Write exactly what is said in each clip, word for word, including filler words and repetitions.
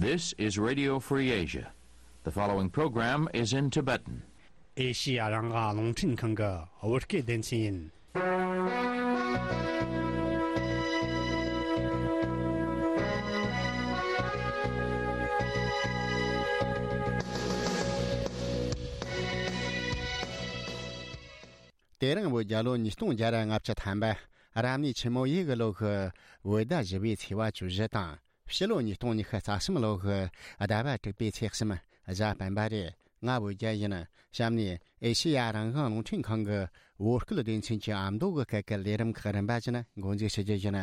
This is Radio Free Asia. The following program is in Tibetan. ཨེ་ཤི་ཡ་རང་དབང་རླུང་འཕྲིན་ཁང་གི་བོད་སྐད་སྡེ་ཚན་ཡིན། དེ་རིང་བོད་རྒྱལ་ལོ་ཉིས་སྟོང་བརྒྱ་ར་ལྔ་བཅུ་ཐམ་པ། རབ་གནས་ཆུ་མོ་ཡོས་གི་ལོ་གི་བོད་ཟླ་བཞི་པའི་ཚེས་པ་བཅུ་བཞི་དང་། ཕྱི་ལོ་ཉིས་སྟོང་ཉི་ཤུ་རྩ་གསུམ་ལོ་གི་ཟླ་བ་དྲུག་པའི་ཚེས་གསུམ་གཟའ་སྤེན་པ་རེད། ང་བོད་རྒྱལ་ཡིན། གཤམ་ནས་ཨེ་ཤེ་ཡ་རང་དབང་རླུང་འཕྲིན་ཁང་གི་བོད་སྐད་སྡེ་ཚན་གྱི་ཨ་མདོ་གི་སྐད་ཀྱི་ལས་རིམ་ཁག་རིམ་པ་བཞིན་འགོ་འཛུགས་བྱེད་རྒྱུ་ཡིན།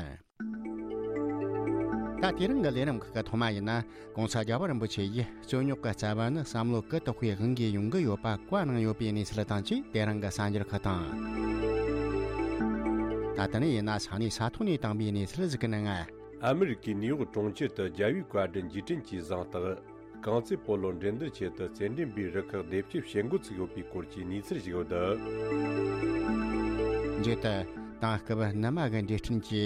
ད་དེ་རིང་གི་ལས་རིམ་ཁག་གི་ཐོག་མ་ཡིན་ན། ༸གོང་ས་རྒྱལ་བ་རིན་པོ་ཆེ་ཡིས་རྩོད་རྙོག་གི་རྩ་བ་ནི་བསམ་བློ་གུ་དོག་པའི་དབང་གིས་ཡོང་གི་ཡོད་པ་བཀའ་གནང་ཡོད་པའི་གནས་ཚུལ་དང་བཅས་དེ་རིང་གི་གསར་འགྱུར་ཁག་དང་། ད་ལྟ་ནས་ཡིན་ན་ས་གནས་ས་ཐོག་ནས་བཏང་བའི་གནས་ཚུལ་ཟིག་གི་ནང་ང་། ཨ་མི་རི་ཀའི་ནིའུ་ཡོག་གྲོང་ཁྱེར་དུ་རྒྱལ་བའི་བཀའ་དྲིན་རྗེས་དྲན་གྱི་གཟེངས་རྟགས། རྐང་རྩེད་སྤོ་ལོ་འགྲན་བསྡུར་ཆེད་དུ་རྩེད་འགྲན་པའི་རུ་ཁག་སྡེ་བརྒྱད་བྱེད་འགོ་ཚུགས་ཡོད་པའི་སྐོར་གྱི་གནས་ཚུལ་ཞིག་ཡོད། མཇུག་ཏུ། དེང་སྐབས་ནུ་མ་གི་འབྲས་སྐྲན་གྱི་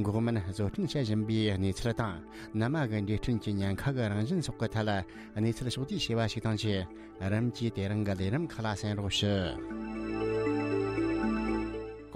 འགོག་སྨན་བཟོ་སྐྲུན་བྱེད་བཞིན་པའི་གནས་ཚུལ་དང་། ནུ་མ་གི་འབྲས་སྐྲན་གྱི་ཉེན་ཁ་གི་རང་བཞིན་སོགས་ཀྱི་ཐད་ལ་གནས་ཚུལ་ཕྱོགས་བསྡུས་བྱས་པ་ཞིག་དང་བཅས། རིམ་གྱིས་དེ་རིང་གི་ལས་རིམ་ཁག་ལ་གསན་རོགས་ཞུ།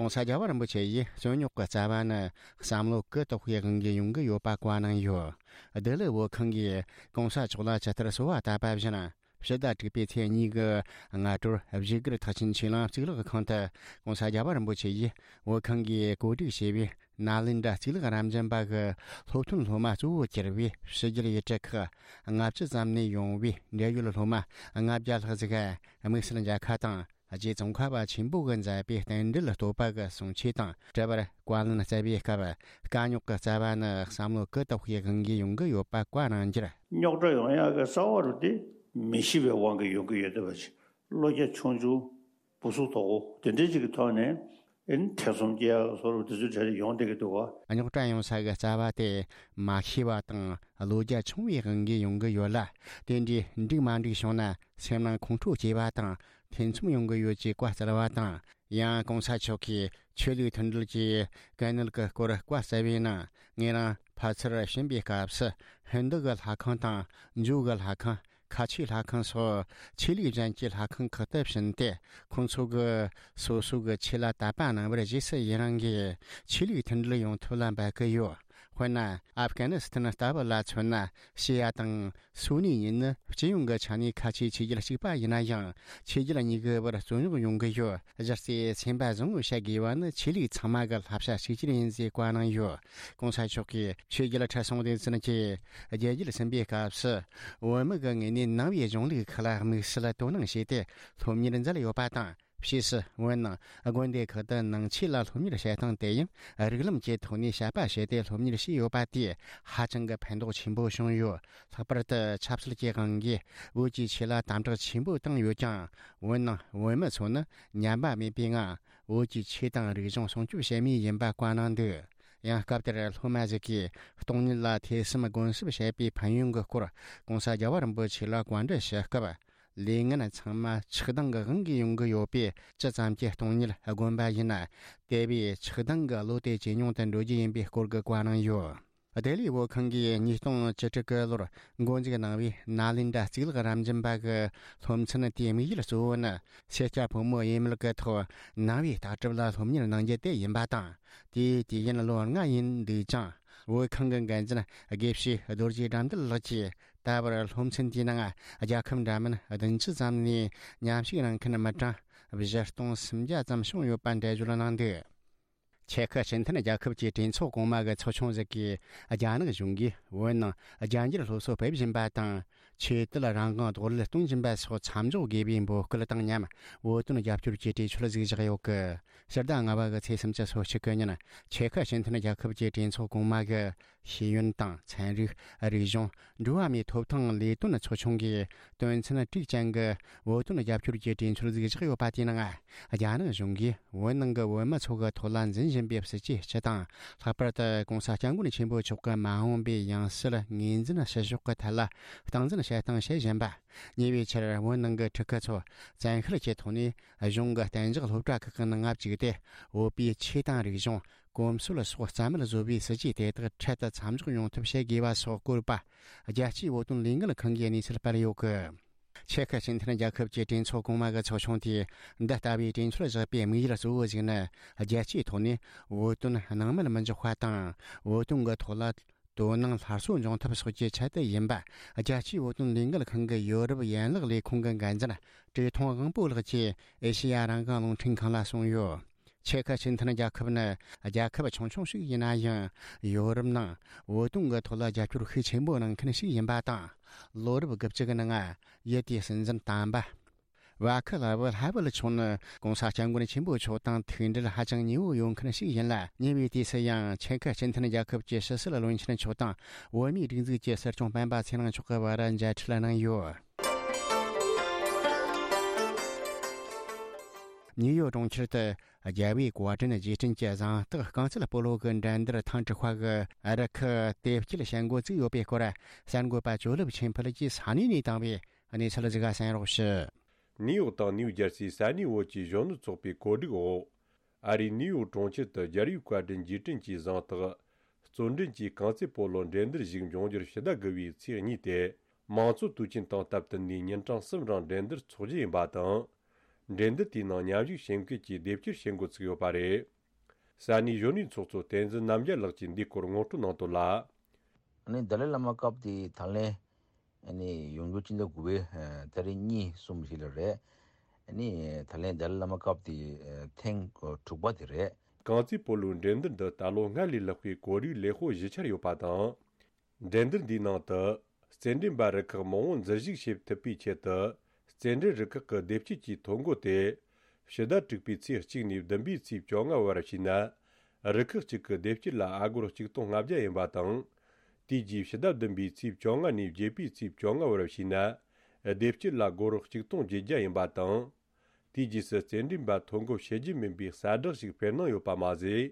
༸གོང་ས་རྒྱལ་བ་རིན་པོ་ཆེ་ཡིས་རྩོད་རྙོག་གི་རྩ་བ་ནི་བསམ་བློ་གུ་དོག་པའི་དབང་གིས་ཡོང་གི་ཡོད་པ་བཀའ་གནང་ཡོད། བདེ་ལེགས་བོད་ཁང་གིས་༸གོང་ས་མཆོག་ལ་ཇི་ལྟར་གསོལ་བ་བཏབ་པ་བཞིན། ཕྱི་ཟླ་དྲུག་པའི་ཚེས་གཉིས་ཀྱི་སྔ་དྲོར་བཞུགས་སྒར་ཐེག་ཆེན་ཆོས་གླིང་གཙུག་ལག་ཁང་དུ་༸གོང་ས་རྒྱལ་བ་རིན་པོ་ཆེ་ཡིས་བོད་ཁང་གིས་གོ་སྒྲིག་བྱས་པའི་ནཱ་ལེནྡྲ་གཙུག་ལག་རབ་འབྱམས་པ་གི་སློབ་ཐོན་སློབ་མ་གཙོ་བོ་གྱུར་པའི་ཕྱི་རྒྱལ་ཡུལ་གྲུ་ཁག་ལྔ་བཅུ་ཙམ་ནས་ཡོང་བའི་འབྲེལ་ཡོད་སློབ་མ་ལྔ་བརྒྱ་ལྷག་ཟིག་དམིགས་བསལ་མཇལ་ཁ་དང་། རྗེ་ཙོང་ཁ་པ་ཆེན་པོ་གིས་མཛད་པའི་རྟེན་འབྲེལ་བསྟོད་པ་གི་གསུང་ཆོས་དང་འབྲེལ་བར་བཀའ་ལན་སྩལ་བའི་སྐབས། དཀའ་རྙོག་གི་རྩ་བ་ནི་བསམ་བློ་གུ་དོག་པའི་དབང་གིས་ཡོང་གི་ཡོད་པ་བཀའ་གནང་རྒྱུར། རྙོག་དྲ་ཡོང་ཡག་གི་རྩ་བ་རུ་དེ་མི་ཤེས་པའི་དབང་གིས་ཡོང་གི་ཡོད་བསྡད་པ་ཅིག་བློ་རྒྱ་ཆུང་ཆུང་། བུ་གཟུགས་དོག་པོ་དེ་འདྲའི་ཅིག་གི་ཐོག་ནས་ཨེ་ནི་ཐེ་ཚོམ་སྐྱེ་ཡག་སོགས་དེ་ཚོའི་གྲས་ལ་ཡོང་བསྡད་ཀྱི་འདུག་བ། རྙོག་དྲ་ཡོང་ས་གི་རྩ་བ་དེ་མ་ཤེས་པ་དང་བློ་རྒྱ་ཆུང་བའི་དབང་གིས་ཡོང་གི་ཡོད་ལ། དེ་འདྲའི་འགྲིག་མ་འགྲིག་བྱུང་ན་སེམས་ནང་ཁོང་ཁྲོ་སྐྱེ་བ་དང་ཐེ་ཚོམ་ཡོང་གི་ཡོད་ཅེས་བཀའ་སྩལ་བ་དང་། ཡང་༸གོང་ས་མཆོག་གིས་ཆོས་ལུགས་མཐུན་སྒྲིལ་གྱི་གལ་གནད་ཀྱི་སྐོར་བཀའ་སྩལ་བའི་ནང་། ངེད་རང་ཕ་ཚུར་ཕྱིན་པའི་སྐབས་སུ་ཧིན་རྡུ་གི་ལྷ་ཁང་དང་ཇོ་གི་ལྷ་ཁང་། ཁ་ཆེའི་ལྷ་ཁང་སོགས་ཆོས་ལུགས་གཞན་གྱི་ལྷ་ཁང་ཁག་ཏུ་ཕྱིན་ཏེ། ཁོང་ཚོ་གིས་སོ་སོ་གི་ཆོས་ལ་དད་པ་གནང་བར་རྗེས་སུ་ཡི་རང་གིས་ཆོས་ལུགས་མཐུན་སྒྲིལ་ཡོང་ཐབས་ལ་འབད་ཀྱི་ཡོད། དཔེར་ན། ཨབ་གྷ་ནི་སི་ཐན་ལྟ་བུ་ལ་མཚོན་ན། ཤི་ཡ་དང་སུ་ནི་གཉིས་ནི་སྤྱི་ཡོངས་ཀྱི་ཆ་ནས་ཁ་ཆེའི་ཆོས་བརྒྱུད་གཅིག་པ་ཡིན་ན་ཡང་། ཆོས་བརྒྱུད་གཉིས་ཀྱི་བར་རྩོད་རྙོག་ཡོང་གི་ཡོད། གཞི་རྩའི་སེམས་པ་བཟང་བོ་བྱ་དགོས་པ་ནི་ཆོས་ལུགས་ཚང་མ་གི་བསླབ་བྱ་གཅིག་གྱུར་ཡིན་ཟེར་བཀའ་གནང་ཡོད། ༸གོང་ས་མཆོག་གིས་ཆོས་བརྒྱུད་ཁྲི་སྲོང་ལྡེ་བཙན་གྱི་རྒྱལ་རྒྱུད་ཟིན་པའི་སྐབས་སུ། བོད་མི་གི་ངོས་ནས་ནང་པའི་གཞུང་ལུགས་ཁག་ལ་དམིགས་བསལ་དོ་སྣང་བྱས་ཏེ་སློབ་གཉེར་མཛད་ཡོད་པ་དང་། ཕྱིས་སུ་བོད་ནང་དགོན་སྡེ་ཁག་ཏུ་ནང་ཆོས་ལ་སློབ་གཉེར་བྱེད་སྟངས་དེ་ཡང་རིགས་ལམ་གྱི་ཐོག་ནས་དཔྱད་པ་བྱས་ཏེ་སློབ་གཉེར་བྱས་ཡོད་པ་དེས་ཧ་ཅང་གི་ཕན་ཐོགས་ཆེན་པོ་བྱུང་ཡོད། ལྷག་པར་དུ་ཆབ་སྲིད་ཀྱི་དབང་གིས་བོད་ཀྱི་ཆོས་ལ་དམ་དྲག་ཆེན་པོ་བཏང་ཡོད་ཀྱང་། བོད་ནང་བོད་མི་ཚོ་ནི་ཉམས་པ་མེད་པའི་ངང་བོད་ཀྱི་ཆོས་དང་རིག་གཞུང་སྲུང་སྐྱོབ་བྱེད་མུས་ཡིན་པ་བཀའ་གནང་འདུག་ཡང་སྐབས་དེར་སློབ་མ་ཞིག་གིས་སྟོང་ཉིད་ལ་ཐོས་བསམ་སྒོམ་གསུམ་བྱས་པའི་ཕན་ཡོན་གྱི་སྐོར་༸གོང་ས་རྒྱལ་བ་རིན་པོ་ཆེ་ལ་བཀའ་འདྲི་ཞུ་སྐབས། ལས་ངན་ཚང་མ་ཆགས་སྡང་གི་དབང་གིས་ཡོང་གི་ཡོད་པས། ཅི་ཙམ་གྱིས་སྟོང་ཉིད་སྒོམ་པ་ཡིན་ན། དེ་བས་ཆགས་སྡང་གི་བློ་དེ་ཇེ་ཉུང་དུ་འགྲོ་རྒྱུ་ཡིན་པའི་སྐོར་གྱི་བཀའ་གནང་ཡོད། བདེ་ལེགས་བོད་ཁང་གིས་ཉིས་སྟོང་བཅུ་དྲུག་གི་ལོར་འགོ་འཛུགས་གནང་བའི་ནཱ་ལེནྡྲ་གཙུག་ལག་རབ་འབྱམས་པ་གི་སློབ་ཚན་དེའི་དམིགས་ཡུལ་གཙོ་བོ་ནི། སེར་སྐྱ་ཕོ་མོ་ཡས་མས་ཀྱི་ཐོག་ནང་པའི་ལྟ་གྲུབ་ལ་སློབ་གཉེར་གནང་རྒྱུ་དེ་ཡིན་པ་དང་། དེའི་དུས་ཡུན་ལོ་ལྔ་ཡིན་འདུག་ཀྱང་། བོད་ཁང་གི་འགན་འཛིན་དགེ་བཤེས་རྡོ་རྗེ་དགྲ་འདུལ་ལགས་ཀྱིས། ད་བར་སློབ་ཚན་དེའི་ནང་རྒྱལ་ཁབ་འདྲ་མིན་བདུན་ཅུ་ཙམ་ནས་མཉམ་ཞུགས་གནང་མཁན་མི་གྲངས་བཞི་སྟོང་སུམ་བརྒྱ་ཙམ་བྱུང་ཡོད་པ་འགྲེལ་བརྗོད་གནང་འདུག་ཆེ་ཁུ་སྤྱི་མཐུན་རྒྱལ་ཁབ་ཀྱི་གྲོས་ཚོགས་གོང་མ་གི་ཚོགས་ཆུང་ཟིག་གིས། རྒྱ་ནག་གཞུང་གིས་བོད་ནང་རྒྱ་འགྱུར་སློབ་གསོ་སྤེལ་བཞིན་པ་དང་། ཆོས་དད་རང་དབང་རྡོག་རོལ་གཏོང་བཞིན་པ་སོགས་མཚམས་འཇོག་དགོས་པའི་འབོད་སྐུལ་དང་མཉམ། བོད་དོན་རྒྱབ་སྐྱོར་གྱི་གྲོས་ཆོད་ཟིག་བཞག་ཡོད་གི། ཕྱི་ཟླ་ལྔ་པ་གི་ཚེས་སུམ་ཅུ་སོ་གཅིག་གི་ཉིན། ཆེ་ཁུ་སྤྱི་མཐུན་རྒྱལ་ཁབ་ཀྱི་གྲོས་ཚོགས་གོང་མ་གི་ཤེས་ཡོན་དང་ཚན་རིག་རིག་གཞུང་འགྲོ་བ་མིའི་ཐོབ་ཐང་ལས་དོན་ཚོགས་ཆུང་གིས་དོན་ཚན་དྲུག་ཅན་གྱི་བོད་དོན་རྒྱབ་སྐྱོར་གྱི་གྲོས་ཆོད་ཟིག་བཞག་ཡོད་པ་དེའི་ནང་། རྒྱ་ནག་གཞུང་གིས་བོད་ནང་གི་བོད་མི་ཚོ་གི་ཐོག་ལ་འཛིན་བཞིན་པའི་སྲིད་ཇུས་སྤྱི་དང་། ལྷག་པར་དུ་༸གོང་ས་༸སྐྱབས་མགོན་ཆེན་པོ་མཆོག་གི་མ་འོངས་པའི་ཡང་སྲིད་ངོས་འཛིན་བྱེད་ཕྱོགས་ཀྱི་ཐད་ལ་སྟངས་འཛིན་བྱེད་སྟངས་བྱེད་བཞིན་པ། ཉེ་བའི་ཆར་བོད་ནང་གི་ཕྲུ་གུ་ཚོ་བཙན་ཤེད་ཀྱི་ཐོག་ནས་གཞུང་གི་གཏན་འཇགས་སློབ་གྲྭ་ཁག་གི་ནང་ང་བཅུག་སྟེ། བོད་པའི་ཆོས་དང་རིག་གཞུང་ གོམས་སྲོལ་སོགས་རྩ་མེད་བཟོ་བའི་སྲིད་ཇུས་དེ་དག་འཕྲལ་དུ་མཚམས་འཇོག་ཡོང་ཐབས་བྱེད་དགོས་པ་སོགས་བཀོད་པ། རྒྱལ་སྤྱིའི་བོད་དོན་ལས་འགུལ་ཁང་གིས་གནས་ཚུལ་སྤེལ་ཡོད་གི། ཆེ་ཁ་སྤྱི་མཐུན་རྒྱལ་ཁབ་ཀྱི་གྲོས་ཚོགས་གོང་མ་གི་ཚོགས་ཆུང་དེས་འདི་ལྟ་བུའི་གྲོས་ཆོད་བཞག་པའི་དམིགས་ཡུལ་གཙོ་བོ་ཞིག་ནི། རྒྱལ་སྤྱིའི་ཐོག་ནས་བོད་དོན་སྣང་མེད་མི་འཇོག་པ་དང་། བོད་དོན་གྱི་ཐོག་ལ་དོ་སྣང་སླར་གསོ་འབྱུང་ཐབས་སོགས་ཀྱི་ཆེད་དུ་ཡིན་པ། རྒྱལ་སྤྱིའི་བོད་དོན་ལས་འགུལ་ཁང་གི་ཡོ་རོབ་ཡན་ལག་ལས་ཁུངས་ཀྱི་འགན་འཛིན་བཀྲས་མཐོང་དབང་པོ་ལགས་ཀྱིས་ཨེ་ཤེ་ཡ་རང་དབང་རླུང་འཕྲིན་ཁང་ལ་གསུངས་ཡོད། ཆེ་ཁ་སྤྱི་མཐུན་རྒྱལ་ཁབ་ནི་རྒྱལ་ཁབ་ཆུང་ཆུང་ཞིག་ཡིན་ན་ཡང་། ཡོ་རོབ་ནང་བོད་དོན་གྱི་ཐོག་ལ་རྒྱབ་སྐྱོར་ཤུགས་ཆེན་པོ་གནང་མཁན་ཞིག་ཡིན་པ་དང་། ལོ་རབས་དགུ་བཅུ་གི་ནང་ཡུལ་དེའི་སྲིད་འཛིན་དམ་པ་ཝ་ཁི་ལ་ཝི་ཧ་ཝེལ་མཆོག་ནི་༸གོང་ས་སྐྱབས་མགོན་ཆེན་པོ་མཆོག་དང་ཐུག་འབྲེལ་ཧ་ཅང་ཉེ་བོ་ཡོད་མཁན་ཞིག་ཡིན་ལ། ཉེ་བའི་དུས་སུ་ཡང་ཆེ་ཁ་སྤྱི་མཐུན་རྒྱལ་ཁབ་ཀྱི་ཕྱི་སྲིད་བློན་ཆེན་མཆོག་དང་བོད་མིའི་སྒྲིག་འཛུགས་ཀྱི་སྲིད་སྐྱོང་སྤེན་པ་ཚེ་རིང་མཆོག་གི་བར་མཇལ་འཕྲད་གནང་ཡོད། ནིའུ་ཡོག་གྲོང་ཁྱེར་དུ་རྒྱལ་བའི་བཀའ་དྲིན་རྗེས་དྲན་གྱི་གཟེངས་རྟགས་རྐང་རྩེད་སྤོ་ལོ་གི་འགྲན་བསྡུར་ཐེངས་དྲུག་པ་གི་རུ་ཁག་དེབ་སྐྱེལ་བྱེད་འགོ་བཙུགས་ཡོད་པའི་སྐོར། གསར་འགོད་པ་ཇོ་ལེབ་ཆོས་འཕེལ་གྱིས་ས་གནས་ནས་བཏང་བའི་གནས་ཚུལ་ཞིག་གསན་རོགས་ཞུ། ནིའུ་ཡོག་དང་ནིའུ་ཇར་སིའི་ས་གནས་བོད་ཀྱི་གཞོན་ནུ་ཚོགས་པའི་གོ་སྒྲིག་འོག་ཨ་རིའི་ནིའུ་ཡོག་གྲོང་ཁྱེར་དུ་རྒྱལ་བའི་བཀའ་དྲིན་རྗེས་དྲན་གྱི་གཟེངས་རྟགས་རྩོད་འགྲན་གྱི་རྐང་རྩེད་སྤོ་ལོ་འགྲན་བསྡུར་ཞིག་འབྱུང་རྒྱུར་ཕྱི་ཟླ་དགུ་བའི་ཚེས་གཉིས་ཏེ། མང་གཙོ་དུས་ཆེན་དང་སྟབས་བསྟུན་ནས་ཉིན་གྲངས་གསུམ་རིང་འགྲན་བསྡུར་འཚོགས་རྒྱུ་ཡིན་པ་དང་། འགྲན་བསྡུར་དེའི་ནང་མཉམ་ཞུགས་བྱེད་མཁན་གྱི་དེབ་སྐྱེལ་བྱེད་འགོ་ཚུགས་ཡོད་པ་རེད། ས་གནས་གཞོན་ནུའི་ཚོགས་གཙོ་བསྟན་འཛིན་རྣམ་རྒྱལ་ལགས་ཀྱིས་འདིའི་སྐོར་ངོ་སྤྲོད་གནང་དོན་ལ། ཨ་ནི་ཏཱ་ལའི་བླ་མ་སྐབས་དེའི་ད་ལན་ཨ་ནི་ཡོང་རྒྱུ་སྤྱི་ཟླ་དགུ་པའི་ཨ་ཏ་རིག་གཉིས་གསུམ་ཞིག་ལ་རེད། ཨ་ནི་ད་ལན་ཏཱ་ལའི་བླ་མ་སྐབས་དེའི་ཨ་ཐེངས་དྲུག་པ་དེ་རེད། རྐང་རྩེད་སྤོ་ལོའི་འགྲན་བསྡུར་འདི་ད་ལོ་སྔར་ལས་ལྷག་པའི་གོ་སྒྲིག་ལེགས་པོ་ཞུ་འཆར་ཡོད་པ་དང་། འགྲན་བསྡུར་འདིའི་ནང་དུ་རྩེད་འགྲན་པ་རུ་ཁག་མང་བོ་འཛུལ་ཞུགས་བྱེད་ཐུབ་པའི་ཆེད་དུ། རྩེད་འགྲན་རུ་ཁག་གི་དེབ་སྐྱེལ་གྱི་ཐོ་འགོད་དེ་ཕྱི་ཟླ་དྲུག་པའི་ཚེས་གཅིག་ནས་བདུན་པའི་ཚེས་བཅོ་ལྔ་བར་བྱས་ན། རུ་ཁག་གཅིག་གི་དེབ་སྐྱེལ་ལ་ཨ་སྒོར་གཅིག་སྟོང་ལྔ་བརྒྱ་ཡིན་པ་དང་། དེའི་རྗེས་ཕྱི་ཟླ་བདུན་པའི་ཚེས་བཅོ་ལྔ་ནས་བརྒྱད་པའི་ཚེས་བཅོ་ལྔ་བར་བྱས་ན། དེབ་སྐྱེལ་ལ་སྒོར་གཅིག་སྟོང་བརྒྱད་བརྒྱ་ཡིན་པ་དང་། དེའི་རྗེས་སུ་རྩེད་འགྲན་པ་ཐོ་འགོད་བྱེད་རྒྱུ་མིན་པའི་གསལ་བསྒྲགས་ཤིག་སྤེལ་གནང་ཡོད་པ་མ་ཟད།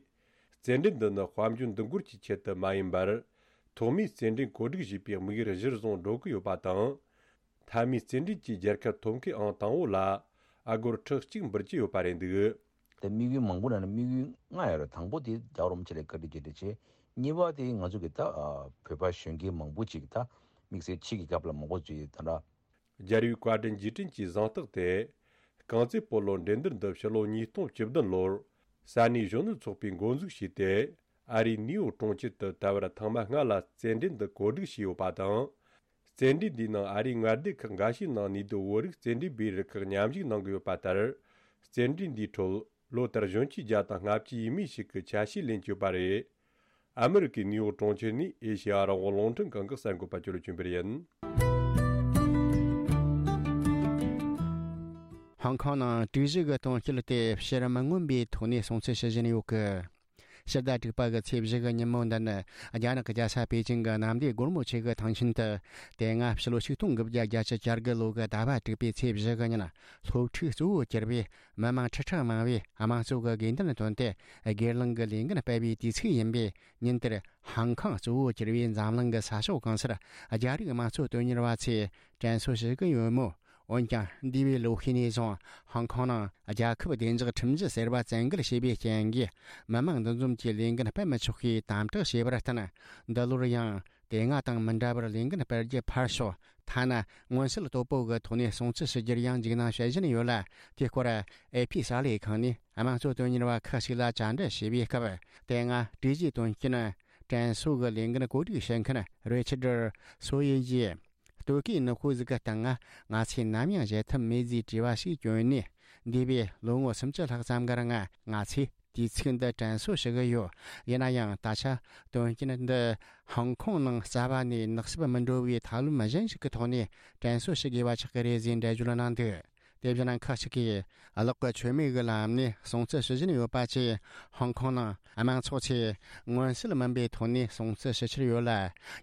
རྩེད་འགྲན་འདི་ནི་དཔལ་འབྱོར་འདུ་འགོད་ཀྱི་ཆེད་དུ་མ་ཡིན་པར། ཐོག་མའི་རྩེད་འགྲན་གོ་སྒྲིག་བྱས་པའི་དམིགས་ཡུལ་གཞིར་བཟུང་འགྲོ་གི་ཡོད་པ་དང་། མཐའ་མའི་རྩེད་འགྲན་གྱི་རྒྱལ་ཁ་ཐོབ་མཁན་ཨང་དང་པོ་ལ་ཨ་སྒོར་ཁྲི་གཅིག་འབུལ་གྱི་ཡོད་པ་རེད་འདུག། དེ་དམིགས་ཡུལ་མང་པོ་ནང་ནས་དམིགས་ཡུལ་ལྔ་ཡོད་རེད། དང་པོ་དེ་རྒྱལ་བ་རིན་པོ་ཆེ་ལ་བཀའ་དྲིན་རྗེས་དྲན་བྱས། གཉིས་པ་དེ་ང་ཚོ་གི་ད་ཨ་བོད་པ་གཞོན་སྐྱེས་མང་པོ་ཅིག་ད་དམིགས་བསལ་ཕྱི་གི་རྒྱབ་ལ་མང་པོ་ཚུད་ཡོད་ད་འདྲ། རྒྱལ་བའི་བཀའ་དྲིན་རྗེས་དྲན་གྱི་གཟེངས་རྟགས་དེ། རྐང་རྩེད་སྤོ་ལོ་འགྲན་བསྡུར་འདི་ཕྱི་ལོ་ཉིས་སྟོང་བཅུ་བདུན་ལོར་ས་གནས་གཞོན་ནུ་ཚོགས་པས་འགོ་འཛུགས་བྱས་ཏེ། ཨ་རིའི་ནིའུ་ཡོག་གྲོང་ཁྱེར་དུ་ད་བར་ཐེངས་མ་ལྔ་ལ་རྩེད་འགྲན་འདི་གོ་སྒྲིག་བྱས་ཡོད་པ་དང་། རྩེད་འགྲན་འདིའི་ནང་ཨ་རིའི་མངའ་སྡེ་ཁག་འགའ་ཤས་ནང་ནུས་སྡུད་བོད་རིགས་རྩེད་འགྲན་པའི་རུ་ཁག་མཉམ་ཞུགས་གནང་གི་ཡོད་པ་ལྟར། རྩེད་འགྲན་འདིའི་ཁྲོད་ལོ་ལྟར་གཞོན་སྐྱེས་བརྒྱ་དང་ལྔ་བཅུ་ཡས་མས་ཤིག་གི་ཆ་ཤས་ལེན་གྱི་ཡོད་པ་རེད། ཨ་མི་རི་ཀའི་ནིའུ་ཡོག་གྲོང་ཁྱེར་ནས་ཨེ་ཤེ་ཡ་རང་དབང་རླུང་འཕྲིན་ཁང་གི་གསར་འགོད་པ་ཅོ་ལི་ཅུན་པེར་ཡིན། ཧོང་ཀོང་ནང་དྲུག་བཞི་གི་དོན་རྐྱེན་དེ་ཕྱིར་མི་མངོན་པའི་ཐོག་ནས་སྲུང་བརྩི་ཞུ་བཞིན་ཡོད་གི། ཕྱི་ཟླ་དྲུག་པ་གི་ཚེས་བཞི་གི་ཉིན་མོ་འདི་ནི་རྒྱ་ནག་གི་རྒྱལ་ས་པེ་ཅིང་གི་གནམ་བདེ་སྒོར་མོ་ཆེ་གི་ཐང་ཆེན་དུ། དེ་སྔ་ཕྱི་ལོ་ཆིག་སྟོང་དགུ་བརྒྱ་བརྒྱད་ཅུ་གྱ་དགུ་ལོ་གི་ཟླ་བ་དྲུག་པའི་ཚེས་བཞི་གི་ཉིན་སློབ་ཕྲུག་གཙོ་བོ་གྱུར་པའི་མི་མང་ཁྲི་ཕྲག་མང་བས་དམངས་གཙོ་གི་དགོས་འདུན་བཏོན་ཏེ་སྒེར་ལངས་ཀྱི་ལས་འགུལ་སྤེལ་བའི་དུས་ཚིགས་ཡིན་པས། ཉིན་དེར་ཧང་ཀང་གཙོ་བོ་གྱུར་པའི་འཛམ་གླིང་གི་ས་ཕྱོགས་གང་སར་རྒྱ་རིགས་དམངས་གཙོ་དོན་གཉེར་བ་ཚོས་དྲན་གསོ་ཞུ་གི་ཡོད་མོད། འོན་ཀྱང་འདས་པའི་ལོ་ཤས་ནས་བཟུང་ཧོང་ཀོང་ནང་རྒྱལ་ཁབ་བདེ་འཇགས་ཁྲིམས་གཞི་ཟེར་བ་བཙན་འགེལ་བྱས་པའི་རྐྱེན་གྱིས། མི་མང་འདུ་འཛོམས་ཀྱི་ལས་འགུལ་སྤེལ་མི་ཆོག་པའི་དམ་དྲག་བྱས་པར་བརྟེན། འདི་ལོར་ཡང་དེ་སྔ་དང་མི་འདྲ་བར་ལས་འགུལ་སྤེལ་རྒྱུ་ཕར་ཞོག་ཐ་ན་མངོན་གསལ་དོད་པོ་གི་ཐོག་ནས་སྲུང་བརྩི་ཞུ་རྒྱུར་ཡང་འཇིགས་སྣང་བྱེད་བཞིན་ཡོད་ལ། དེའི་སྐོར་ཨེ་ཕི་གསར་ལས་ཁང་ནས་དམངས་གཙོ་དོན་གཉེར་བ་ཁག་ཅིག་ལ་བཅར་འདྲི་བྱས་པའི་སྐབས། དེ་སྔ་དྲུག་བཞིའི་དོན་རྐྱེན་དྲན་གསོ་གི་ལས་འགུལ་གོ་སྒྲིག་བྱེད་མཁན་རེ་ཆར་སོ་ཡེ་ཡིས། ལྟོ་གོས་ནག་པོ་ཟིག་གི་སྟེང་ང་ང་ཚོས་ནམ་ཡང་བཞེས་ཐབས་མེད་ཟེར་དྲི་བ་ཞིག་བསྐྱོན་ནས། འདས་པའི་ལོ་ངོ་སུམ་ཅུ་ལྷག་ཙམ་གི་རིང་ང་ཚོས་དུས་ཚིགས་འདི་དྲན་གསོ་ཞུ་གི་ཡོད། ཡིན་ན་ཡང་ད་ཆ་དོན་རྐྱེན་འདི་ཧོང་ཀོང་ནང་རྩ་བ་ནས་ནག་སུབ་མི་འགྲོ་བའི་ཐབས་ལམ་གཞན་ཞིག་གི་ཐོག་ནས་དྲན་གསོ་ཞུ་དགོས་པ་ཆགས་ཀྱི་རེད་ཟེར་འགྲེལ་བརྗོད་གནང་འདུག་དེ་བཞིན་ཁག་ཅིག་གིས་གློག་གི་མཆོད་མེ་གི་ལམ་ནས་སྲུང་བརྩི་ཞུ་བཞིན་ཡོད་པ་བཅས། ཧོང་ཀོང་ནང་དམངས་ཚོགས་ཚོས་མངོན་གསལ་མིན་པའི་ཐོག་ནས་སྲུང་བརྩི་ཞུ་འཆར་ཡོད་ལ།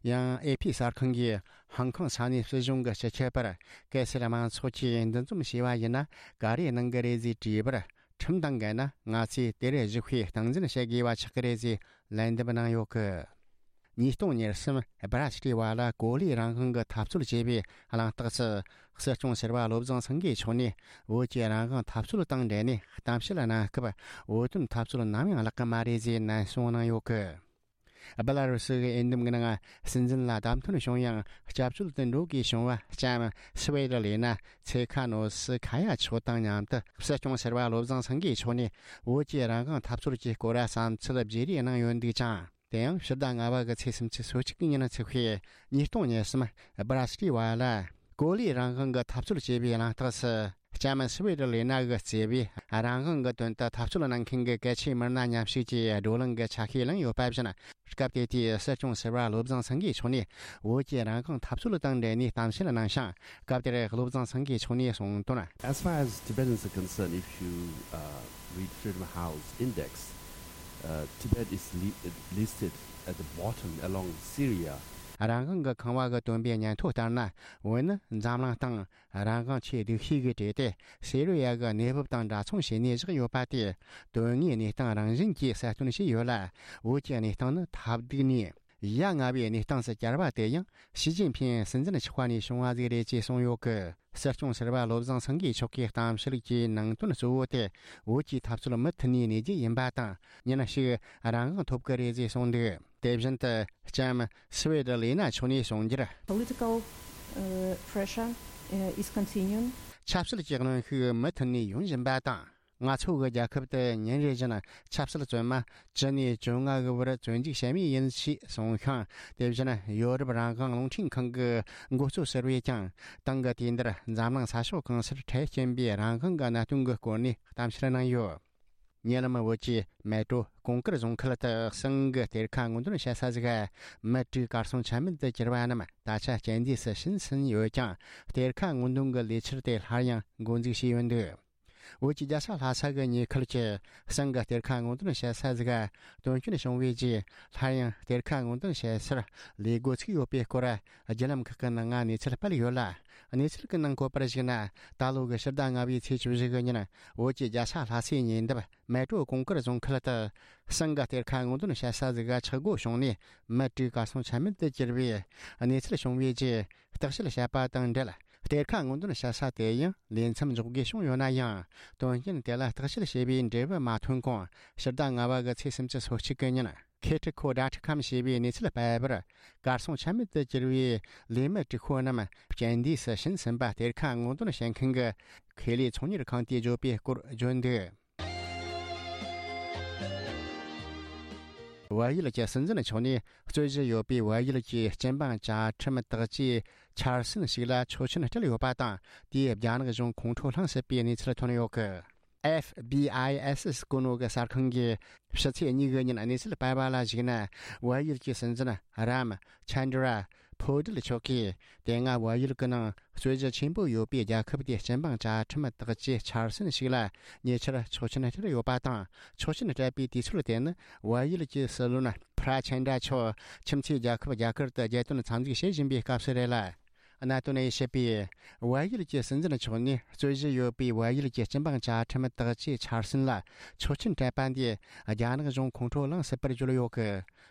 ཡང་ཨེ་ཕི་གསར་ཁང་གིས་ཧོང་ཀོང་ས་གནས་སྲིད་གཞུང་གི་སྤྱི་ཁྱབ་པར། གལ་སྲིད་དམངས་ཚོགས་ཀྱིས་འདུ་འཛོམས་བྱས་པ་ཡིན་ན། ག་རེ་གནང་གི་རེད་ཟེར་དྲིས་པར། ཁྲིམས་དང་འགལ་ན་ང་ཚོས་དེར་ཞུགས་པའི་སྟངས་འཛིན་བྱེད་དགོས་པ་ཆགས་ཀྱི་རེད་ཟེར་ལན་འདེབས་གནང་ཡོད་གི། ཉིས་སྟོང་ཉེར་གསུམ་སྦ་ར་སི་ཊི་བ་ལ་གོ་ལའི་རང་དབང་གི་འཐབ་རྩོད་ཅེས་པའི་གླེང་སྟེགས་སུ། སྲིད་སྐྱོང་ཟུར་པ་བློ་བཟང་སེང་གེ་མཆོག་ནས་བོད་ཀྱི་རང་དབང་འཐབ་རྩོད་དང་འབྲེལ་ནས་གཏམ་བཤད་གནང་སྐབས། བོད་དོན་འཐབ་རྩོད་ནམ་ཡང་བརླག་གི་མ་རེད་ཅེས་ནན་གསུང་གནང་ཡོད་གི། སྦེ་ལ་རུ་སི་གི་འོས་འདེམས་ཀྱི་ནང་སྲིད་འཛིན་ལ་བདམས་ཐོན་བྱུང་ཡང་། སྐྱབས་བཅོལ་དུ་འགྲོ་དགོས་བྱུང་བ་ལྕམ་སི་ཝེ་ཏི་ལི་ན་ཚེ་ཁ་ནོ་སི་ཁ་ཡ་མཆོག་དང་མཉམ་དུ། སྲིད་སྐྱོང་ཟུར་པ་བློ་བཟང་སེང་གེ་མཆོག་ནས་བོད་ཀྱི་རང་དབང་འཐབ་རྩོད་ཀྱི་སྐོར་བསམ་ཚུལ་བརྗེ་རེས་གནང་ཡོད་འདུག་ཅིང་། དེ་ཡང་ཕྱི་ཟླ་ལྔ་པ་གི་ཚེས་སུམ་ཅུ་སོ་གཅིག་གི་ཉིན་ཚེས་པའི་ཉིས་སྟོང་ཉེར་གསུམ་སྦ་ར་སི་ཊི་བ་ལ། གོ་ལའི་རང་དབང་གི་འཐབ་རྩོད་ཅེས་པའི་གླེང་སྟེགས་སུ། ལྕམ་སི་ཝེ་ཏི་ལི་ན་གིས་གཙོས་པའི་རང་དབང་གི་དོན་དུ་འཐབ་རྩོད་གནང་མཁན་གྱི་གལ་ཆེའི་མི་སྣ་མཉམ་ཞུགས་ཀྱིས་བགྲོ་གླེང་གི་ཆ་ཤས་བླངས་ཡོད་པ་བཞིན། སྐབས་དེ་དུས་སྲིད་སྐྱོང་ཟུར་པ་བློ་བཟང་སེང་གེ་མཆོག་ནས་བོད་ཀྱི་རང་དབང་འཐབ་རྩོད་དང་འབྲེལ་ནས་གཏམ་བཤད་གནང་ཞིང་། སྐབས་དེར་བློ་བཟང་སེང་གེ་མཆོག་ནས་གསུངས་དོན། As far as Tibetans are concerned, if you uh, read Freedom House Index, uh, Tibet is li- listed at the bottom along with Syria. རང་དབང་གི་ཁང་བ་གི་སྟོན་པའི་ཉན་ཐོས་ལྟར་ན། བོད་ནི་འཛམ་གླིང་སྟེང་རང་དབང་ཆེས་སྡུག་ཤོས་ཀྱི་གྲས་ཏེ། སི་རི་ཡ་གི་གནས་བབ་དང་འདྲ་མཚུངས་བྱས་ནས་བཞག་ཡོད་པ་དེ། དོན་དངོས་གནས་སྟངས་རང་བཞིན་གྱིས་གསལ་སྟོན་བྱས་ཡོད་ལ། བོད་ཀྱི་གནས་སྟངས་ནི་ཐབས་སྡུག་ནས་ཡ་ང་བའི་གནས་སྟངས་སུ་གྱར་བ་དེ་ཡང་ཞི་ཅིན་ཕིང་སྲིད་འཛིན་ཆགས་པ་ནས་བྱུང་བ་ཟིག་རེད་ཅེས་གསུངས་ཡོད་གི། སྲིད་སྐྱོང་ཟུར་པ་བློ་བཟང་སེང་གེ་མཆོག་གིས་གཏམ་བཤད་ཀྱི་ནང་དོན་གཙོ་བོ་དེ། བོད་ཀྱི་འཐབ་རྩོད་མུ་མཐུད་ནས་གནས་རྒྱུ་ཡིན་པ་དང་། ཉིན་ཞིག་རང་དབང་ཐོབ་ཀྱི་རེད་ཅེས་གསུངས་འདུག་དེ་བཞིན་དུ་ལྕམ་སི་ཝེ་ཏི་ལི་ན་མཆོག་ནས་གསུངས་རྒྱུར། Political uh, pressure uh, is continuing. ཆབ་སྲིད་ཀྱི་གནོན་ཤུགས་མུ་མཐུད་ནས་ཡོང་བཞིན་པ་དང་། ང་ཚོ་གི་རྒྱལ་ཁབ་ཏུ་ཉིན་རེ་བཞིན་ཆབ་སྲིད་བཙོན་མ་བཅུ་ནས་བཅོ་ལྔ་གི་བར་བཙོན་འཇུག་བྱེད་མུས་ཡིན་ཞེས་གསུངས་ཤིང་། དེ་བཞིན་ཡོ་རོབ་རང་དབང་རླུང་འཕྲིན་ཁང་གི་འགོ་གཙོ་ཟུར་པས་ཀྱང་། ཏང་གི་དུས་འདིར་འཛམ་གླིང་ས་ཕྱོགས་གང་སར་འཕྲལ་རྐྱེན་པའི་རང་དབང་གི་གནད་དོན་གྱི་སྐོར་ནས་གཏམ་བཤད་གནང་ཡོད། ཉེ་ལམ་བོད་ཀྱི་མེ་ཏྲོ་གོང་དཀར་རྫོང་ཁུལ་དུ་གསང་གི་གཏེར་ཁ་སྔོག་འདོན་བྱེད་ས་ཟིག་མུ་དྲུག་གར་སོང་ཆ་མེད་དུ་གྱུར་བ་རྣམས་ད་ཆ་རྐྱེན་འདས་སུ་ཕྱིན་ཟིན་ཡོད་ཀྱང་། གཏེར་ཁ་སྔོག་འདོན་གྱི་ལས་འཆར་དེ་སླར་ཡང་འགོ་འཛུགས་བྱས་ཡོད་འདུག་བོད་ཀྱི་རྒྱལ་ས་ལྷ་ས་གི་ཉེ་ཁུལ་གྱི་གསང་གི་གཏེར་ཁ་སྔོག་འདོན་བྱེད་ས་ཟིག་དོན་རྐྱེན་བྱུང་བའི་རྗེས། སླར་ཡང་གཏེར་ཁ་སྔོག་འདོན་བྱེད་སར་ལས་འགོ་ཚུགས་ཡོད་པའི་སྐོར་བརྒྱུད་ལམ་ཁག་གི་ནང་ང་གནས་ཚུལ་སྤེལ་ཡོད་ལ། གནས་ཚུལ་གྱི་ནང་བཀོད་པར་གཞིགས་ན། ད་ལོ་གི་ཕྱི་ཟླ་ལྔ་པའི་ཚེས་བཅུ་བཞི་གི་ཉིན་བོད་ཀྱི་རྒྱལ་ས་ལྷ་སའི་ཉེ་འདབས་མལ་གྲོ་གོང་དཀར་རྫོང་ཁུལ་དུ་གསང་གི་གཏེར་ཁ་སྔོག་འདོན་བྱེད་ས་ཟིག་ཆག་སྒོ་བྱུང་ནས། མི་དྲུག་གར་སོང་ཆ་མེད་དུ་གྱུར་བའི་གནས་ཚུལ་བྱུང་བའི་རྗེས། བརྟག་དཔྱད་བྱས་པ་དང་འབྲེལ། གཏེར་ཁ་སྔོག་འདོན་བྱེད་ས་དེ་ཡང་ལས་མཚམས་འཇོག་དགོས་བྱུང་ཡོད་ན་ཡང་། དོན་རྐྱེན་དེ་ལ་བརྟག་དཔྱད་བྱས་པའི་འབྲས་བུ་མ་ཐོན་གོང་། ཕྱི་ཟླ་ལྔ་པ་གི་ཚེས་སུམ་ཅུ་སོ་གཅིག་གི་ཉིན། ཁེ་ཁྲི་ཁོ་ཌ་ཁྲི་ཁམ་ཞེས་པའི་གནས་ཚུལ་སྤེལ་བར། གར་སོང་ཆ་མེད་དུ་གྱུར་བའི་ལས་མི་དྲུག་པོ་རྣམས་རྐྱེན་འདས་སུ་ཕྱིན་ཟིན་པ། གཏེར་ཁ་སྔོག་འདོན་བྱེད་མཁན་གྱི་ཁེ་ལས་ཚོང་གཉེར་ཁང་དེས་བརྗོད་པའི་སྐོར་བརྗོད་འདུག་བལ་ཡུལ་གྱི་སྲིད་འཛིན་མཆོག་ནས་རྩོད་གཞི་ཡོད་པའི་བལ་ཡུལ་གྱི་སྤྱི་འབངས་བཅའ་ཁྲིམས་དག་བཅས་འཆར་ཟིན་ཞིག་ལ་ཆོག་མཆན་སྤྲད་ཡོད་པ་དང་། དེས་རྒྱ་ནག་གཞུང་ཁོང་ཁྲོ་ལངས་སྲིད་པའི་གནས་ཚུལ་ཐོན་ཡོད་གི། ཨེཕ་བི་ཨའི་ཨེས་ཨེས་སྐུ་ངོ་གི་གསར་ཁང་གིས་ཕྱི་ཚེས་གཉིས་ཀྱི་ཉིན་གནས་ཚུལ་སྤེལ་བ་ལ་གཞིགས་ན། བལ་ཡུལ་གྱི་སྲིད་འཛིན་རམ་ཆན་དྲ་ཕོ་ཏིལ་མཆོག་གིས། དེ་སྔ་བལ་ཡུལ་གྱི་ནང་རྩོད་གཞི་ཆེན་པོ་ཡོད་པའི་རྒྱལ་ཁབ་དེའི་སྤྱི་འབངས་བཅའ་ཁྲིམས་དག་བཅས་འཆར་ཟིན་ཞིག་ལ་ཉེ་ཆར་ཆོག་མཆན་སྤྲད་ཡོད་པ་དང་། ཆོག་མཆན་སྤྲད་པའི་དུས་ཚོད་དེ་ནི་བལ་ཡུལ་གྱི་སྲིད་བློན་ཕྲ་ཆན་དྲ་མཆོག་ཁྱིམ་མཚེས་རྒྱལ་ཁབ་རྒྱ་གར་དུ་རྒྱལ་དོན་འཚམས་གཟིགས་བྱེད་བཞིན་པའི་སྐབས་སུ་རེད་ལ། གནད་དོན་ཡིན་བཤད་པས། བལ་ཡུལ་གྱི་སྲིད་འཛིན་མཆོག་ནས་རྩོད་གཞི་ཡོད་པའི་བལ་ཡུལ་གྱི་སྤྱི་འབངས་བཅའ་ཁྲིམས་དག་བཅས་འཆར་ཟིན་ལ་ཆོག་མཆན་སྤྲད་པ་འདིས་རྒྱ་ནག་གཞུང་ཁོང་ཁྲོ་ལངས་སྲིད་པར་བརྗོད་ཡོད་གི།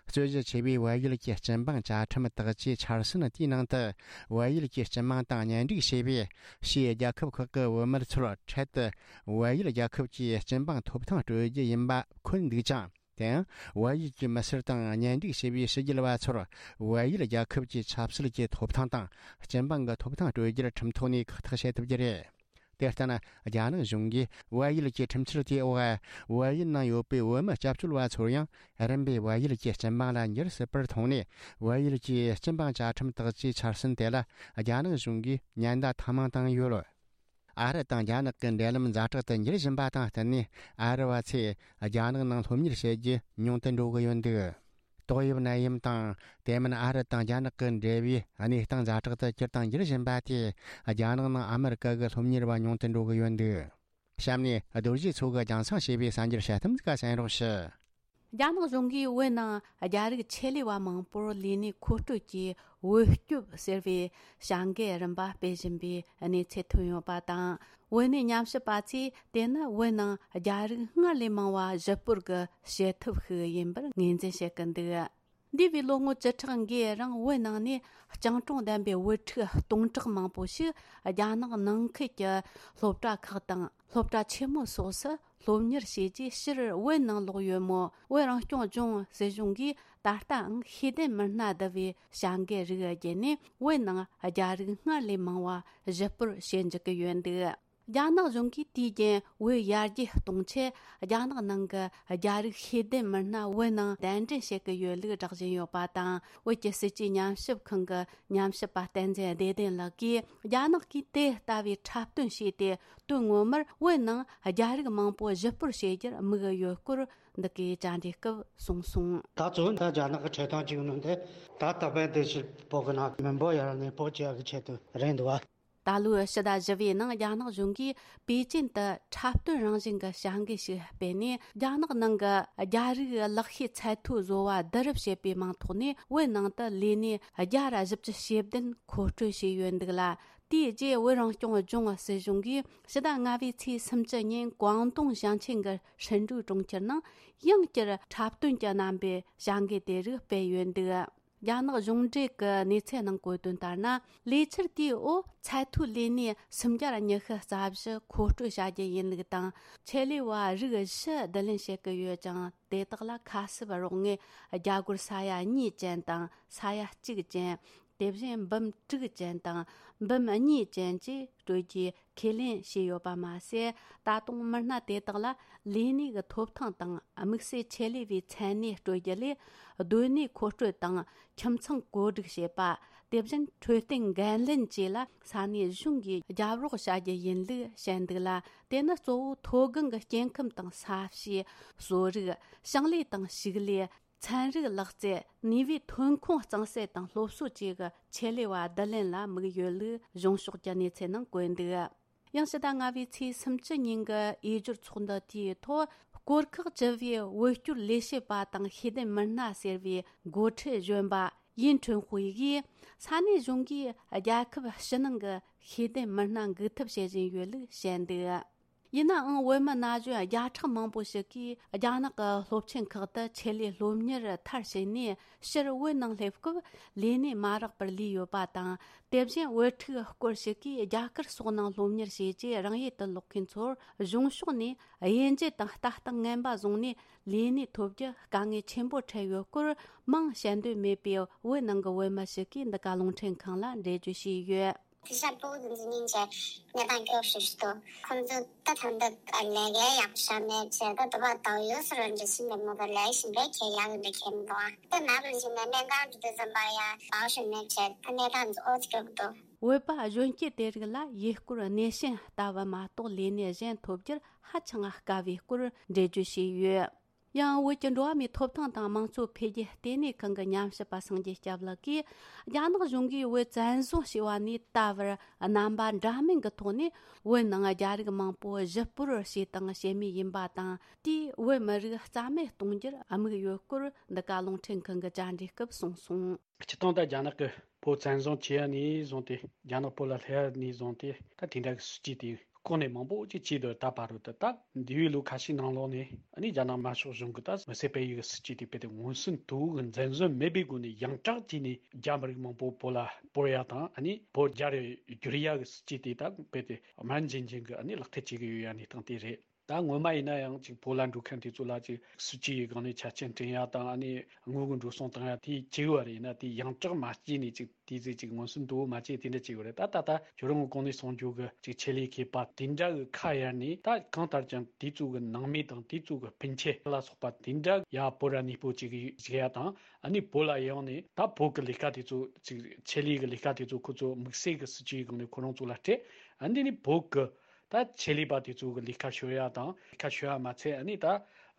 རྩོད་གཞི་ཆེ་བའི་བལ་ཡུལ་གྱི་སྤྱི་འབངས་བཅའ་ཁྲིམས་དག་བཅས་འཆར་ཟིན་དེའི་ནང་དུ། བལ་ཡུལ་གྱི་སྤྱི་དམངས་དང་གཉེན་སྒྲིག་བྱས་པའི་ཕྱིའི་རྒྱལ་ཁབ་ཁག་གི་བུད་མེད་ཚོར་འཕྲལ་དུ་བལ་ཡུལ་རྒྱལ་ཁབ་ཀྱི་སྤྱི་འབངས་ཐོབ་ཐང་སྤྲོད་རྒྱུ་ཡིན་པ་འཁོད་འདུག་ཅིང་། དེ་ཡང་བལ་ཡུལ་གྱི་མི་སེར་དང་གཉེན་སྒྲིག་བྱས་པའི་ཕྱི་རྒྱལ་བ་ཚོར་བལ་ཡུལ་རྒྱལ་ཁབ་ཀྱི་ཆབ་སྲིད་ཀྱི་ཐོབ་ཐང་དང་སྤྱི་འབངས་ཀྱི་ཐོབ་ཐང་སྤྲོད་རྒྱུར་ཁྲིམས་ཐོག་ནས་ཁག་ཐེག་བྱེད་ཐུབ་རྒྱུ་རེད། དེ་ལྟར་ན། རྒྱ་ནག་གཞུང་གིས་བལ་ཡུལ་གྱི་ཁྲིམས་འཆར་དེའི་འོག་བལ་ཡུལ་ནང་ཡོད་པའི་བོད་མི་སྐྱབས་བཅོལ་བ་ཚོར་ཡང་རིམ་པས་བལ་ཡུལ་གྱི་སྤྱི་འབངས་ལ་འགྱུར་སྲིད་པར་མཐོང་ནས། བལ་ཡུལ་གྱི་སྤྱི་འབངས་བཅའ་ཁྲིམས་དག་བཅས་འཆར་ཟིན་དེ་ལ་རྒྱ་ནག་གཞུང་གིས་ཉེན་བརྡ་ཐེངས་མང་བཏང་ཡོད། ཨ་རི་དང་རྒྱ་ནག་གི་འབྲེལ་ལམ་ཛ་དྲག་ཏུ་འགྱུར་བཞིན་པ་དང་བསྟུན་ནས། ཨ་རི་བ་ཚོས་རྒྱ་ནག་ནང་སློབ་གཉེར་བྱེད་རྒྱུ་ཉུང་དུ་འགྲོ་གི་ཡོད་འདུག་ཏོག་དབྱིབས་ནད་ཡམས་དང་། དེ་མིན་ཨ་རི་དང་རྒྱ་ནག་གི་འབྲེལ་བའི་གནས་སྟངས་ཛ་དྲག་ཏུ་གྱུར་དང་འགྱུར་བཞིན་པ་དེས། རྒྱ་ནག་ནང་ཨ་མི་རི་ཀ་གི་སློབ་གཉེར་བ་ཉུང་དུ་འགྲོ་གི་ཡོད་འདུག་གཤམ་ནས་རྡོ་རྗེ་མཚོ་གིས་རྒྱང་སྲིང་བྱས་པའི་གསར་འགྱུར་དཔྱད་གཏམ་ཟིག་ག་གསན་རོགས་ཞུ། རྒྱ་ནག་གཞུང་གིས་བོད་ནང་རྒྱ་རིགས་ཆེད་ལས་པ་མང་པོར་ལས་གནས་མཁོ་སྤྲོད་ཀྱི་བོད་སྐྱོབ་ཟེར་བའི་བྱ་འགུལ་རིམ་པ་སྤེལ་བཞིན་པའི་གནས་ཚུལ་ཐོན་ཡོད་པ་དང་། བོད་གནས་ཉམས་ཞིབ་པ་ཚོས་དེ་ནི་བོད་ནང་རྒྱ་རིགས་སྔར་ལས་མང་བ་གཞིས་སྤོར་གྱི་བྱེད་ཐབས་ཤིག་ཡིན་པར་ངོས་འཛིན་བྱེད་ཀྱི་འདུག་འདས་པའི་ལོ་ངོ་བཅུ་ཕྲག་འགའི་རིང་བོད་ནང་ནས་སྤྱང་གྲུང་ལྡན་པའི་བུ་ཕྲུག་སྟོང་ཕྲག་མང་པོ་ཞིག་རྒྱ་ནག་ནང་ཁུལ་གྱི་སློབ་གྲྭ་ཁག་དང་སློབ་གྲྭ་ཆེན་མོ་སོགས་སུ་སློབ་གཉེར་བྱས་རྗེས་ཕྱིར་བོད་ནང་ལོག་ཡོད་མོད། བོད་རང་སྐྱོང་ལྗོངས་སྲིད་གཞུང་གིས་ད་ལྟའང་ཤེས་ལྡན་མི་སྣ་བསྡུ་བའི་བྱ་འགུལ་རིགས་བརྒྱུད་ནས་བོད་ནང་རྒྱ་རིགས་སྔར་ལས་མང་བ་གཞིས་སྤོར་བྱེད་འཇུག་གི་ཡོད་འདུག་རྒྱ་ནག་གཞུང་གིས་དུས་རྒྱུན་བོད་ཡར་རྒྱས་གཏོང་ཆེད་རྒྱ་ནག་ནང་གི་རྒྱ་རིགས་ཤེས་ལྡན་མི་སྣ་བོད་ནང་གདན་འདྲེན་བྱེད་ཀྱི་ཡོད་ལུགས་བསྒྲགས་བཞིན་ཡོད་པ་དང་། བོད་ཀྱི་སྲིད་ཇུས་ཉམས་ཞིབ་ཁང་གི་ཉམས་ཞིབ་པ་བསྟན་འཛིན་བདེ་ལྡན་ལགས་ཀྱིས། རྒྱ་ནག་གིས་དེ་ལྟ་བུའི་འཁྲབ་སྟོན་བྱས་ཏེ། དོན་ངོ་མར་བོད་ནང་རྒྱ་རིགས་མང་པོ་གཞིས་སྤོར་བྱེད་རྒྱུར་དམིགས་ཡོད་སྐོར་འདི་གའི་བཅར་འདྲིའི་སྐབས་གསུངས་སོང་། ད་གཙོ་བོ་ད་རྒྱ་ནག་གི་ཁྲིད་སྟངས་གཅིག་ནི་འདི་ད་ད་ཕན་དེ་ཕྱིར་བོད་ཀྱི་ནང་མི་འབོར་ཡར་གནས་སྤོ་བྱེད་ཡག་གི་ཆེད་དུ་རེད་འདུག་བ། ད་ལོའི་ཕྱི་ཟླ་བཞི་པའི་ནང་རྒྱ་ནག་གཞུང་གིས་པེ་ཅིན་དུ་འཁྲབ་སྟོན་རང་བཞིན་གྱི་བྱ་འགུལ་ཞིག་སྤེལ་ནས། རྒྱ་ནག་ནང་གི་རྒྱ་རིགས་ལག་ཤེས་ཚད་མཐོའི་བཟོ་བ་བསྡུ་རུབ་བྱེད་པའི་མིང་ཐོག་ནས་བོད་ནང་དུ་ལས་གནས་བརྒྱ་ར་བཞི་བཅུ་ཞེ་བདུན་མཁོ་སྤྲོད་བྱས་ཡོད་འདུག་ལ། དེའི་རྗེས་བོད་རང་སྐྱོང་ལྗོངས་སྲིད་གཞུང་གིས་ཕྱི་ཟླ་ལྔ་པའི་ཚེས་སུམ་ཅུ་ཉིན་ཀོང་ཏུང་ཞིང་ཆེན་གྱི་ཧྲིན་ཀྲུའུ་གྲོང་ཁྱེར་ནང་ཡང་བསྐྱར་འཁྲབ་སྟོན་གྱི་རྣམ་པའི་བྱ་འགུལ་དེ་རིགས་སྤེལ་ཡོད་འདུག་རྒྱ་ནག་གཞུང་འབྲེལ་གྱི་གནས་ཚུལ་ནང་བཀོད་དོན་ལྟར་ན། ལས་འཆར་དེའི་འོག་ཚད་མཐོའི་ལས་གནས་སུམ་བརྒྱ་ཉི་ཤུ་རྩ་བཞི་མཁོ་སྤྲོད་བྱ་རྒྱུ་ཡིན་ལུགས་དང་། ཆེད་ལས་པ་རིགས་བཞི་བསྡུ་ལེན་བྱེད་ཀྱི་ཡོད་ཅིང་། དེ་དག་ལ་ཁ་གསབ་རོགས་དངུལ་རྒྱ་སྒོར་ས་ཡ་གཉིས་ཅན་དང་ས་ཡ་གཅིག་ཅན། དེ་བཞིན་འབུམ་དྲུག་ཅན་དང་འབུམ་གཉིས་ཅན་བཅས་སྤྲོད་རྒྱུའི་ཁས་ལེན་བྱས་ཡོད་པ་མ་ཟད། ད་དུང་མི་སྣ་དེ་དག་ལ་ལས་གནས་ཀྱི་ཐོབ་ཐང་དང་དམིགས་བསལ་ཆེད་ལས་པའི་མཚན་གནས་སྤྲོད་རྒྱུ་ལས། སྡོད་གནས་མཁོ་སྤྲོད་དང་ཁྱིམ་ཚང་བཀོད་སྒྲིག་བྱེད་པ། དེ་བཞིན་འཕྲོད་བསྟེན་འགན་ལེན་བཅས་ལ་ས་གནས་གཞུང་གིས་རྒྱབ་རོགས་བྱ་རྒྱུ་ཡིན་ལུགས་བཤད་འདུག་ལ། དེ་ནི་གཙོ་བོ་མཐོ་སྒང་གི་སྐྱེ་ཁམས་དང་ས་གཤིས། གསོ་རིག། ཞིང་ལས་དང་ཕྱུགས་ལས། ཚན་རིག་ལག་རྩལ། ནུས་པའི་ཐོན་ཁུངས་གཙང་སེལ་དང་སློབ་གསོ་བཅས་ཀྱི་ཆེད་ལས་པ་བསྡུ་ལེན་ལ་དམིགས་ཡོད་ལུགས་གཞུང་ཕྱོགས་ཀྱི་གནས་ཚུལ་ནང་བཀོད་འདུག་ཡང་ཕྱི་ཟླ་ལྔ་པའི་ཚེས་སུམ་ཅུ་ཉིན་གྱི་འོས་སྦྱོར་ཚོགས་འདུ་དེའི་ཐོག་སྐོར་ཁག་བཅུ་པའི་བོད་སྐྱོར་ལས་བྱེད་པ་དང་ཤེས་ལྡན་མི་སྣ་ཟེར་བའི་འགོ་ཁྲིད་གཞོན་པ་ཡིན་ཁྲོན་ཧུའེ་ཡིས། ས་གནས་གཞུང་གིས་རྒྱལ་ཁབ་ཕྱི་ནང་གི་ཤེས་ལྡན་མི་སྣ་འགུག་ཐབས་བྱེད་བཞིན་ཡོད་ལུགས་བཤད་འདུག་ཡིན་ནའང་བོད་མི་ན་གཞོན་བརྒྱ་ཕྲག་མང་པོ་ཞིག་གིས་རྒྱ་ནག་གི་སློབ་ཆེན་ཁག་ཏུ་ཆེད་ལས་སློབ་གཉེར་མཐར་ཕྱིན་ནས་ཕྱིར་བོད་ནང་སླེབས་སྐབས་ལས་གནས་མ་རག་པར་ལུས་ཡོད་པ་དང་། དེ་བཞིན་བོད་ཕྲུག་སྐོར་ཞིག་གིས་རྒྱ་གར་སོགས་ནང་སློབ་གཉེར་བྱས་རྗེས་རང་ཡུལ་དུ་ལོག་མཁན་ཚོར་གཞུང་ཕྱོགས་ནས་དབྱེ་འབྱེད་དང་ལྟ་སྟངས་ངན་པ་བཟུང་ནས་ལས་གནས་ཐོབ་རྒྱུ་དཀའ་ངལ་ཆེན་པོ་འཕྲད་ཡོད་སྐོར་མིང་བཤད་འདོད་མེད་པའི་བོད་ནང་གི་བོད་མི་ཞིག་གིས་འདི་ག་རླུང་འཕྲིན་ཁང་ལ་འགྲེལ་བརྗོད་བྱས་ཡོད། དེ་ཤ་པོ་འཛིན་ཉིན་བྱས་གནས་སྟངས་སྐྱོ་ཤོས་ཤིག་འདུག་ཁོང་ཚོ་ད་ཐང་ད་ལས་ཀའི་ཡག་ཤ་མེད་བྱས་ད་དུ་བ་དང་ཡོད་སུ་རང་འདྲ་ཞིག་མེད་མོ་ད་ལས་ཞིང་པའི་ཁྱེད་ཡག་འདྲ་ཁྱེད་མི་འདུག་ཨ་ད་ནག་ལ་ཞིག་ནས་གནས་སྟངས་འདི་དུ་འཛམ་པ་ཡ་བའོ་ཤ་མེད་བྱས་ད་གནས་སྟངས་འདི་ཨོ་ཙི་སྐྱོ་གི་འདུག་བོད་པ་གཞོན་སྐྱེས་དེ་རིགས་ལ་ཡུལ་སྐོར་སྣེ་ཤན་ལྟ་བུ་མ་གཏོགས་ལས་གནས་གཞན་ཐོབ་རྒྱུར་ཧ་ཅང་དཀའ་བའི་སྐོར་འགྲེལ་བརྗོད་བྱས་ཡོད། ཡང་བོད་ཀྱི་འགྲོ་བ་མིའི་ཐོབ་ཐང་དང་དམངས་གཙོ་འཕེལ་རྒྱས་ལྟེ་གནས་ཁང་གི་ཉམས་ཞིབ་པ་སངས་རྒྱས་སྐྱབས་ལགས་ཀྱིས། རྒྱ་ནག་གཞུང་གིས་བོད་བཙན་བཟུང་བྱས་པ་ནས་ད་བར་རྣམ་པ་འདྲ་མིན་གྱི་ཐོག་ནས་བོད་ནང་རྒྱ་རིགས་མང་པོ་གཞིས་སྤོར་བྱས་དང་བྱེད་མུས་ཡིན་པ་དང་། དེས་བོད་མི་རིགས་རྩ་མེད་གཏོང་རྒྱུར་དམིགས་ཡོད་སྐོར་འདི་ག་རླུང་འཕྲིན་ཁང་གི་བཅར་འདྲིའི་སྐབས་གསུངས་སོང་། སྤྱིར་བཏང་ད་རྒྱ་ནག་གིས་བོད་བཙན་བཟུང་བྱས་ནས་བཟུང་སྟེ། རྒྱ་ནག་བོད་ལ་སླེབས་ནས་བཟུང་སྟེ། ད་དེ་འདྲ་གི་སྲིད་ཇུས་དེ་བསྐོང་ནས་མང་པོ་ཅིག་བྱས་འདུག་ད་བར་དུ་ད་འདས་པའི་ལོ་ཁ་ཤས་ནང་ལོགས་ནས་ཨ་ནི་རྒྱ་ནག་དམར་ཤོག་གཞུང་གིས་ད་མི་སེར་སྤེལ་ཡུལ་གྱི་སྲིད་ཇུས་དེ་རྦད་དེ་མངོན་སུམ་དུ་གི་འཛིན་བཟུང་མེད་པའི་སྒོ་ནས་ཡང་དྲག་བྱས་ནས་རྒྱ་མི་རིགས་མང་པོ་བོད་ལ་སྤོར་ཡ་དང་། ཨ་ནི་བོད་རྒྱ་རུ་བསྒྱུར་ཡ་གི་སྲིད་ཇུས་དེ་ད་རྦད་དེ་དམར་འཛིང་འཛིང་གི་ཨ་ནི་ལག་བསྟར་བྱེད་ཀྱི་ཡོད་ཡ་གནས་སྟངས་དེ་རེད། ད་སྔོན་མ་ཡིན་ན་ཡང་ཅིག་བོད་ལ་འགྲོ་མཁན་དེ་ཚོ་ལ་ཅིག་སྲིད་ཇུས་ཡི་སྒང་ནས་ཆ་རྐྱེན་སྤྲད་ཡ་དང་། ཨ་ནི་དངུལ་གི་འགྲོ་སོང་བཏང་ཡ་དེ་བྱས་ཡོད་རེད། ཡིན་ན་དེ་ཡང་དྲག་མ་བྱས་ནས་ཅིག་དེ་ཚོས་ཅིག་མངོན་སུམ་དུ་མ་བྱས་དེ་འདྲ་བྱས་ཡོད་རེད། ད་ད་ལྟ་ཁྱོད་རང་གི་གོང་ནས་གསུངས་རྒྱུ་གི་ཅིག་ཆེད་ལས་མཁས་པ་དེ་འདྲ་གི་ཁ་གཡར་ནས། ད་གང་ལྟར་ཀྱང་དེ་ཚོ་གི་ནང་མི་དང་དེ་ཚོ་གི་སྤུན་མཆེད་ལ་སོགས་པ་དེ་འདྲ་ཡ་བོད་ར་གནས་སྤོ་ཅིག་བྱེད་ཡ་དང་། ཨ་ནི་བོད་ལ་ཡོང་ནས་ད་བོད་གི་ལས་ཀ་དེ་ཚོ་ཅིག་ཆེད་ལས་གི་ལས་ཀ་དེ་ཚོ་ཁོ་ཚོ་དམིགས་བསལ་གི་སྲིད་ཇུས་ཡི་སྒང་ནས་ཁོ་རང་ཚོ་ལ་སྤྲད། ཨ་འདི་ནི་བོད་གི་ད་ཆེད་ལས་པ་དེ་ཚོ་གི་ལས་ཀ་ཤོར་ཡ་དང་། ལས་ཀ་ཤོར་ཡ་མ་ཚད། ཨ་ནི་ད་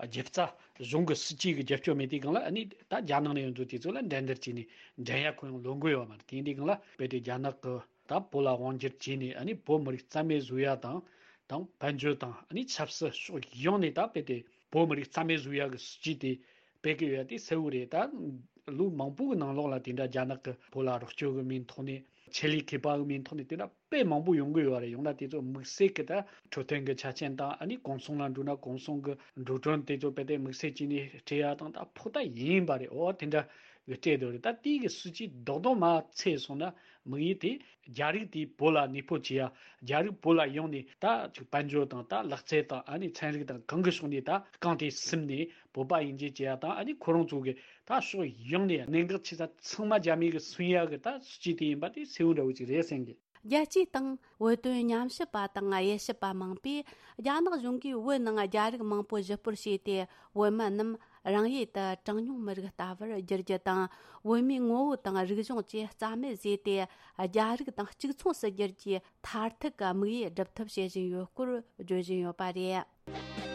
རྒྱབ་རྩ་གཞུང་གི་སྲིད་ཇུས་ཀྱི་རྒྱབ་སྐྱོར་མེད་དུས་སྒང་ལ། ཨ་ནི་ད་རྒྱ་ནག་ནས་ཡོང་དུས་དེ་ཚོ་ལ་འགྲན་བསྡུར་བྱས་ནས་འགྲན་ཡ་ཁོ་ཡང་ལོན་གི་ཡོད་མ་རེད། དེ་འདི་སྒང་ལ་རྦད་དེ་རྒྱ་ནག་གི་ད་བོད་ལ་དབང་སྒྱུར་བྱས་ནས། ཨ་ནི་བོད་མི་རིགས་རྩ་མེད་བཟོ་ཡ་དང་། དང་། དཔལ་འབྱོར་དང་། ཨ་ནི་ཆབ་སྲིད་ཕྱོགས་ཡོངས་ནས་ད་རྦད་དེ་བོད་མི་རིགས་རྩ་མེད་བཟོ་ཡ་གི་སྲིད་ཇུས་དེ་སྤེལ་གི་ཡོད་ཡ་དེ་གསལ་བོ་རེད། ད་ལོ་མང་པོ་གི་ནང་ལོགས་ལ་དེ་འདྲ་རྒྱ་ནག་གི་བོད་ལ་རོགས་སྐྱོར་གི་མིང་ཐོག་ནས། ཆེད་ལས་མཁས་པ་གི་མིང་ཐོག་ནས་དེ་འདྲ་དཔེ་མང་པོ་ཡོང་གི་ཡོད་རེད། ཡང་ན་དེ་ཚོ་དམིགས་བསལ་གྱི་ད་འཕྲོད་བསྟེན་གྱི་ཆ་རྐྱེན་དང་། ཨ་ནི་གུང་སེང་ལ་འགྲོ་ན་གུང་སེང་གི་འགྲོ་གྲོན་དེ་ཚོ་རྦད་དེ་དམིགས་བསལ་བྱས་ནས་སྤྲད་ཡ་དང་། ད་ཕོགས་ད་ཡིན་པ་རེད། འོ་དེ་འདྲ་ གི་སྤྲད་དེ་རེད། ད་དེའི་གི་སྲིད་ཇུས་རྡོག་རྡོག་མ་ཚད་སོང་ན་དམིགས་ཡུལ་དེ་རྒྱ་རིགས་དེ་བོད་ལ་གནས་སྤོ་བྱེད་ཡ། རྒྱ་རིགས་བོད་ལ་ཡོང་ནས་ད་ཅིག་དཔལ་འབྱོར་དང་ད་ལག་རྩལ་དང་ཨ་ནི་ཚན་རིག་དང་གང་གི་ཕྱོགས་ནས་ད་རྐང་དེ་ཟིན་ནས་བོད་པ་ཡིན་གཅིག་བྱེད་ཡ་དང་ཨ་ནི་ཁོ་རང་ཚོ་གི་ད་ཕྱོགས་ཡོངས་ནས་གནད་འགག་ཆེ་ས་ཚང་མ་རྒྱ་མི་གི་སུན་ཡ་གི་ད་སྲིད་ཇུས་དེ་ཡིན་པ་དེ་གསལ་བོ་འདྲ་བོ་ཅིག་རེད་བསམ་གི། རྒྱལ་སྤྱིའི་སྟེང་བོད་དོན་ཉམས་ཞིབ་པ་དང་དབྱེ་ཞིབ་པ་མང་པོས། རྒྱ་ནག་གཞུང་གིས་བོད་ནང་རྒྱ་རིགས་མང་པོ་གཞིས་སྤོར་བྱས་ཏེ། བོད་མི་རྣམས་རང་ཡུལ་དུ་གྲངས་ཉུང་མི་རིགས་ལྟ་བུར་བསྒྱུར་རྒྱུ་དང་། བོད་མིའི་ངོ་བོ་དང་རིག་གཞུང་བཅས་རྩ་མེད་བཟོས་ཏེ། རྒྱ་རིགས་དང་གཅིག་མཚུངས་སུ་བསྒྱུར་རྒྱུའི་མཐར་ཐུག་གི་དམིགས་ཡུལ་སྒྲུབ་ཐབས་བྱེད་བཞིན་ཡོད་སྐོར་བརྗོད་བཞིན་ཡོད་པ་རེད།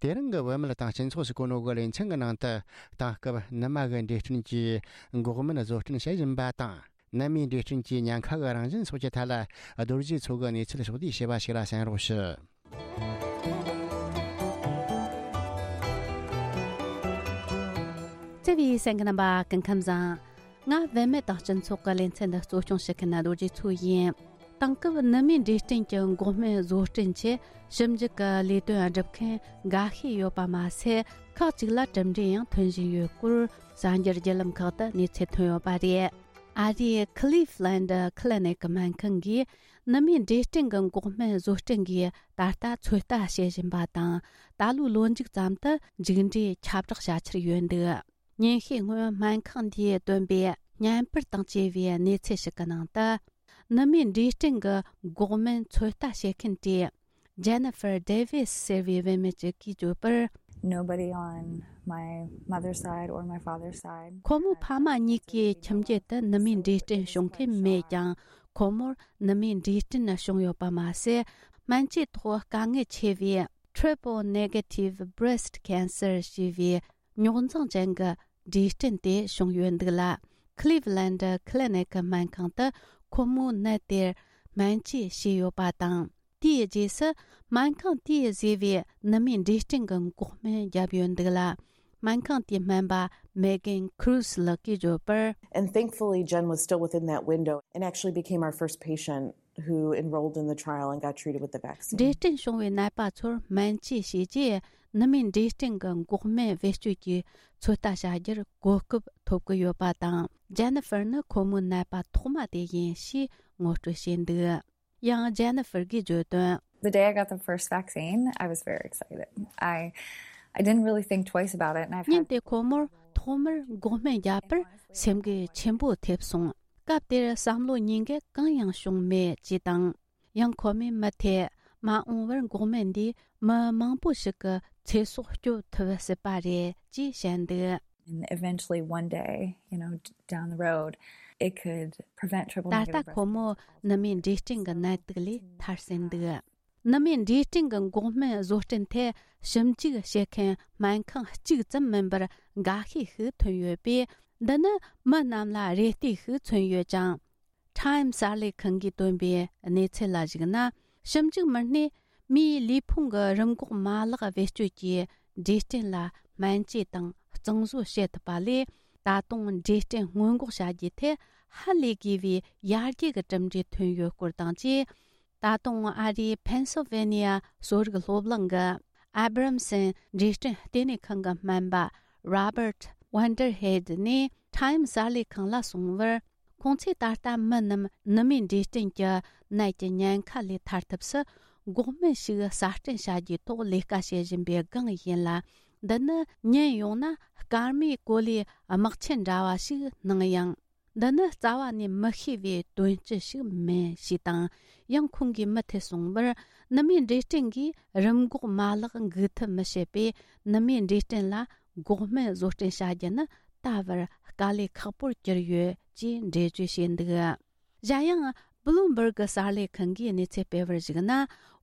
དེ་རིང་གི་བོད་མི་དང་སྤྱི་ཚོགས་སུ་གོ་ནོ་གི་ལེ་ཚན་གྱི་ནང་དུ། དེང་སྐབས་ནུ་མ་གི་འབྲས་སྐྲན་གྱི་འགོག་སྨན་བཟོ་སྐྲུན་བྱེད་བཞིན་པ་དང་། ནུ་མའི་འབྲས་སྐྲན་གྱི་ཉེན་ཁ་གི་རང་བཞིན་སོགས་ཀྱི་ཐད་ལ། རྡོ་རྗེ་མཚོ་གི་གནས་ཚུལ་ཕྱོགས་བསྡུས་བྱས་པ་ཞིག་ལ་གསན་རོགས་ཞུ། བརྩེ་བའི་གསན་མཁན་རྣམ་པ་སྐུ་ཁམས་བཟང་། ང་བུད་མེད་དང་སྤྱི་ཚོགས་ཀྱི་ལེ་ཚན་འདི་གཙོ་སྐྱོང་བྱེད་མཁན་རྡོ་རྗེ་མཚོ་ཡིན། དེང་སྐབས་ནུ་མའི་འབྲས་སྐྲན་གྱི་འགོག་སྨན་བཟོ་སྐྲུན་ཆེད་ཞིབ་འཇུག་གི་ལས་དོན་སྒྲུབ་མཁན་འགའ་ཤས་ཡོད་པ་མ་ཟད། ཁག་ཅིག་ལ་གྲུབ་འབྲས་ཡང་ཐོན་བཞིན་ཡོད་སྐོར་གསར་འགྱུར་བརྒྱུད་ལམ་ཁག་ཏུ་གནས་ཚུལ་ཐོན་ཡོད་པ་རེད། ཨ་རིའི་Cleveland Clinic སྨན་ཁང་གིས་ནུ་མའི་འབྲས་སྐྲན་གྱི་འགོག་སྨན་བཟོ་སྐྲུན་གྱིས་ད་ལྟ་ཚོད་ལྟ་བྱེད་བཞིན་པ་དང་། ད་ལོའི་ལོ་མཇུག་ཙམ་དུ་མཇུག་འབྲས་ཁྱབ་བསྒྲགས་བྱ་འཆར་ཡོད་འདུག་ཉིན་ཤས་སྔོན་སྨན་ཁང་འདིས་བཏོན་པའི་བརྙན་པར་དང་བཅས་པའི་གནས་ཚུལ་ཞིག་གི་ནང་དུ། ནུ་མའི་འབྲས་སྐྲན་གྱི་འགོག་སྨན་ཚོད་ལྟ་བྱེད་མཁན་གྱི་Jennifer Davis ཟེར་བའི་བུད་མེད་ཅིག་གིས་བརྗོད་པར། Nobody on my mother's side or my father's side. ཁོ་མོའི་ཕ་མ་གཉིས་ཀའི་ཁྱིམ་རྒྱུད་དུ་ནུ་མའི་འབྲས་སྐྲན་བྱུང་མཁན་མེད་ཀྱང་། ཁོ་མོར་ནུ་མའི་འབྲས་སྐྲན་བྱུང་ཡོད་པ་མ་ཟད། སྨན་བཅོས་ཐོག་དཀའ་ངལ་ཆེ་བའི་triple negative breast cancer ཞེས་པའི་རྙོག་འཛིང་ཅན་གྱི་འབྲས་སྐྲན་དེ་བྱུང་ཡོད་འདུག་ལ། Cleveland Clinic སྨན་ཁང་དུ་ཁོ་མོའི་ནད་དེར་སྨན་བཅོས་བྱས་ཡོད་པ་དང་། དེའི་རྗེས་སུ་སྨན་ཁང་དེས་བཟོས་པའི་ནུ་མའི་འབྲས་སྐྲན་གྱི་འགོག་སྨན་བརྒྱབ་ཡོད་འདུག་ལ། སྨན་ཁང་དེའི་སྨན་པ་Megan Cruz ལགས་ཀྱིས་བརྗོད་པར། And thankfully, Jen was still within that window and actually became our first patient who enrolled in the trial and got treated with the vaccine. འབྲས་སྐྲན་བྱུང་བའི་ནད་པ་ཚོར་སྨན་བཅོས་བྱས་རྗེས། ནུ་མའི་འབྲས་སྐྲན་གྱི་འགོག་སྨན་བེད་སྤྱོད་ཀྱི་ཚོད་ལྟ་བྱ་རྒྱུར་གོ་སྐབས་ཐོབ་ཀྱི་ཡོད་པ་དང་། Jennifer ནི་ཁོ་མོའི་ནད་པ་ཐོག་མ་དེ་ཡིན་ཞེས་ངོ་སྤྲོད་བྱས་འདུག་ཡང་Jennifer གྱིས་བརྗོད་དོན། The day I got the first vaccine, I was very excited. I, I didn't really think twice about it, and I've had ཉིན་དེ་ཁོ་མོར་ཐོག་མར་འགོག་སྨན་བརྒྱབ་པར་སེམས་འགུལ་ཆེན་པོ་ཐེབས་སོང་། སྐབས་དེར་བསམ་བློ་གཉིས་ཀ་གང་ཡང་བྱུང་མེད་ཅེས་དང་། ཡང་ཁོ་མོས་མུ་མཐུད་མ་འོངས་པར་འགོག་སྨན་འདིས་མི་མང་པོ་ཞིག་གི་ཚེ་སྲོག་སྐྱོབ་ཐུབ་སྲིད་པ་རེད་ཅེས་བཤད་འདུག And eventually, one day, you know, d- down the road, it could prevent triple ད་ལྟ་negative breast ཁོ་མོ་cancer. ནུ་མའི་འབྲས་སྐྲན་གྱི་ནད་དུག་ལས་ཐར་ཟིན་འདུག་ནུ་མའི་འབྲས་སྐྲན་གྱི་འགོག་སྨན་བཟོ་སྐྲུན་ཐད་ཞིབ་འཇུག་བྱེད་མཁན་སྨན་ཁང་གཅིག་ཙམ་མིན་པར་འགའ་ཤས་ཤིག་ཐོན་ཡོད་པས། འདི་ནི་མི་རྣམས་ལ་རེ་ལྟོས་ཤིག་མཚོན་ཡོད་ཅིང་། Time གསར་ལས་ཁང་གིས་བཏོན་པའི་གནས་ཚུལ་ལ་གཞིགས་ན། ཞིབ་འཇུག་མི་སྣས་མིའི་ལུས་ཕུང་གི་རིམས་འགོག་མ་ལག་བེད་སྤྱོད་ཀྱིས་འབྲས་སྐྲན་ལ་སྨན་བཅོས་དང་གཙང་བཟོ་བྱེད་ཐུབ་པ་ལས། ད་དུང་འབྲས་སྐྲན་སྔོན་འགོག་བྱ་རྒྱུའི་ཐད་ཧ་ལས་དགོས་པའི་ཡར་རྒྱས་ཀྱི་གྲུབ་འབྲས་ཐོན་ཡོད་སྐོར་དང་བཅས། ད་དུང་ཨ་རིའི་Pennsylvania གསོ་རིག་སློབ་གླིང་གི་Abramson འབྲས་སྐྲན་ལྟེ་གནས་ཁང་གི་སྨན་པ་Robert Vanderheid ནས་Time གསར་ལས་ཁང་ལ་གསུངས་པར། ཁོང་ཚོས་ད་ལྟ་མི་རྣམས་ནུ་མའི་འབྲས་སྐྲན་གྱི་ནད་ཀྱི་ཉེན་ཁ་ལས་ཐར་ཐབས་སུ་འགོག་སྨན་ཞིག་གསར་སྐྲུན་བྱ་རྒྱུའི་ཐོག་ལས་ཀ་བྱེད་བཞིན་པའི་སྒང་ཡིན་ལ། འདི་ནི་ཉན་ཡོང་ན་སྐར་མའི་གོ་ལའི་དམག་ཆེན་འདྲ་བ་ཞིག་སྣང་ཡང་། འདི་ནི་རྩ་བ་ནས་མི་ཤེས་པའི་དོན་སྤྱི་ཞིག་མིན་ཞེས་དང་། ཡང་ཁོང་གིས་མུ་མཐུད་གསུངས་པར། ནུ་མའི་འབྲས་སྐྲན་གྱིས་རིམས་འགོག་མ་ལག་འགུག་ཐབས་མི་བྱེད་པས། ནུ་མའི་འབྲས་སྐྲན་ལ་འགོག་སྨན་བཟོ་སྐྲུན་བྱ་རྒྱུ་ནི་ད་བར་དཀའ་ལས་ཁག་པོར་གྱུར་ཡོད་ཅེས་འགྲེལ་བརྗོད་བྱས་འདུག་གཞན་ཡང་། Bloomberg གསར་ལས་ཁང་གིས་གནས་ཚུལ་སྤེལ་བར་གཞིགས་ན།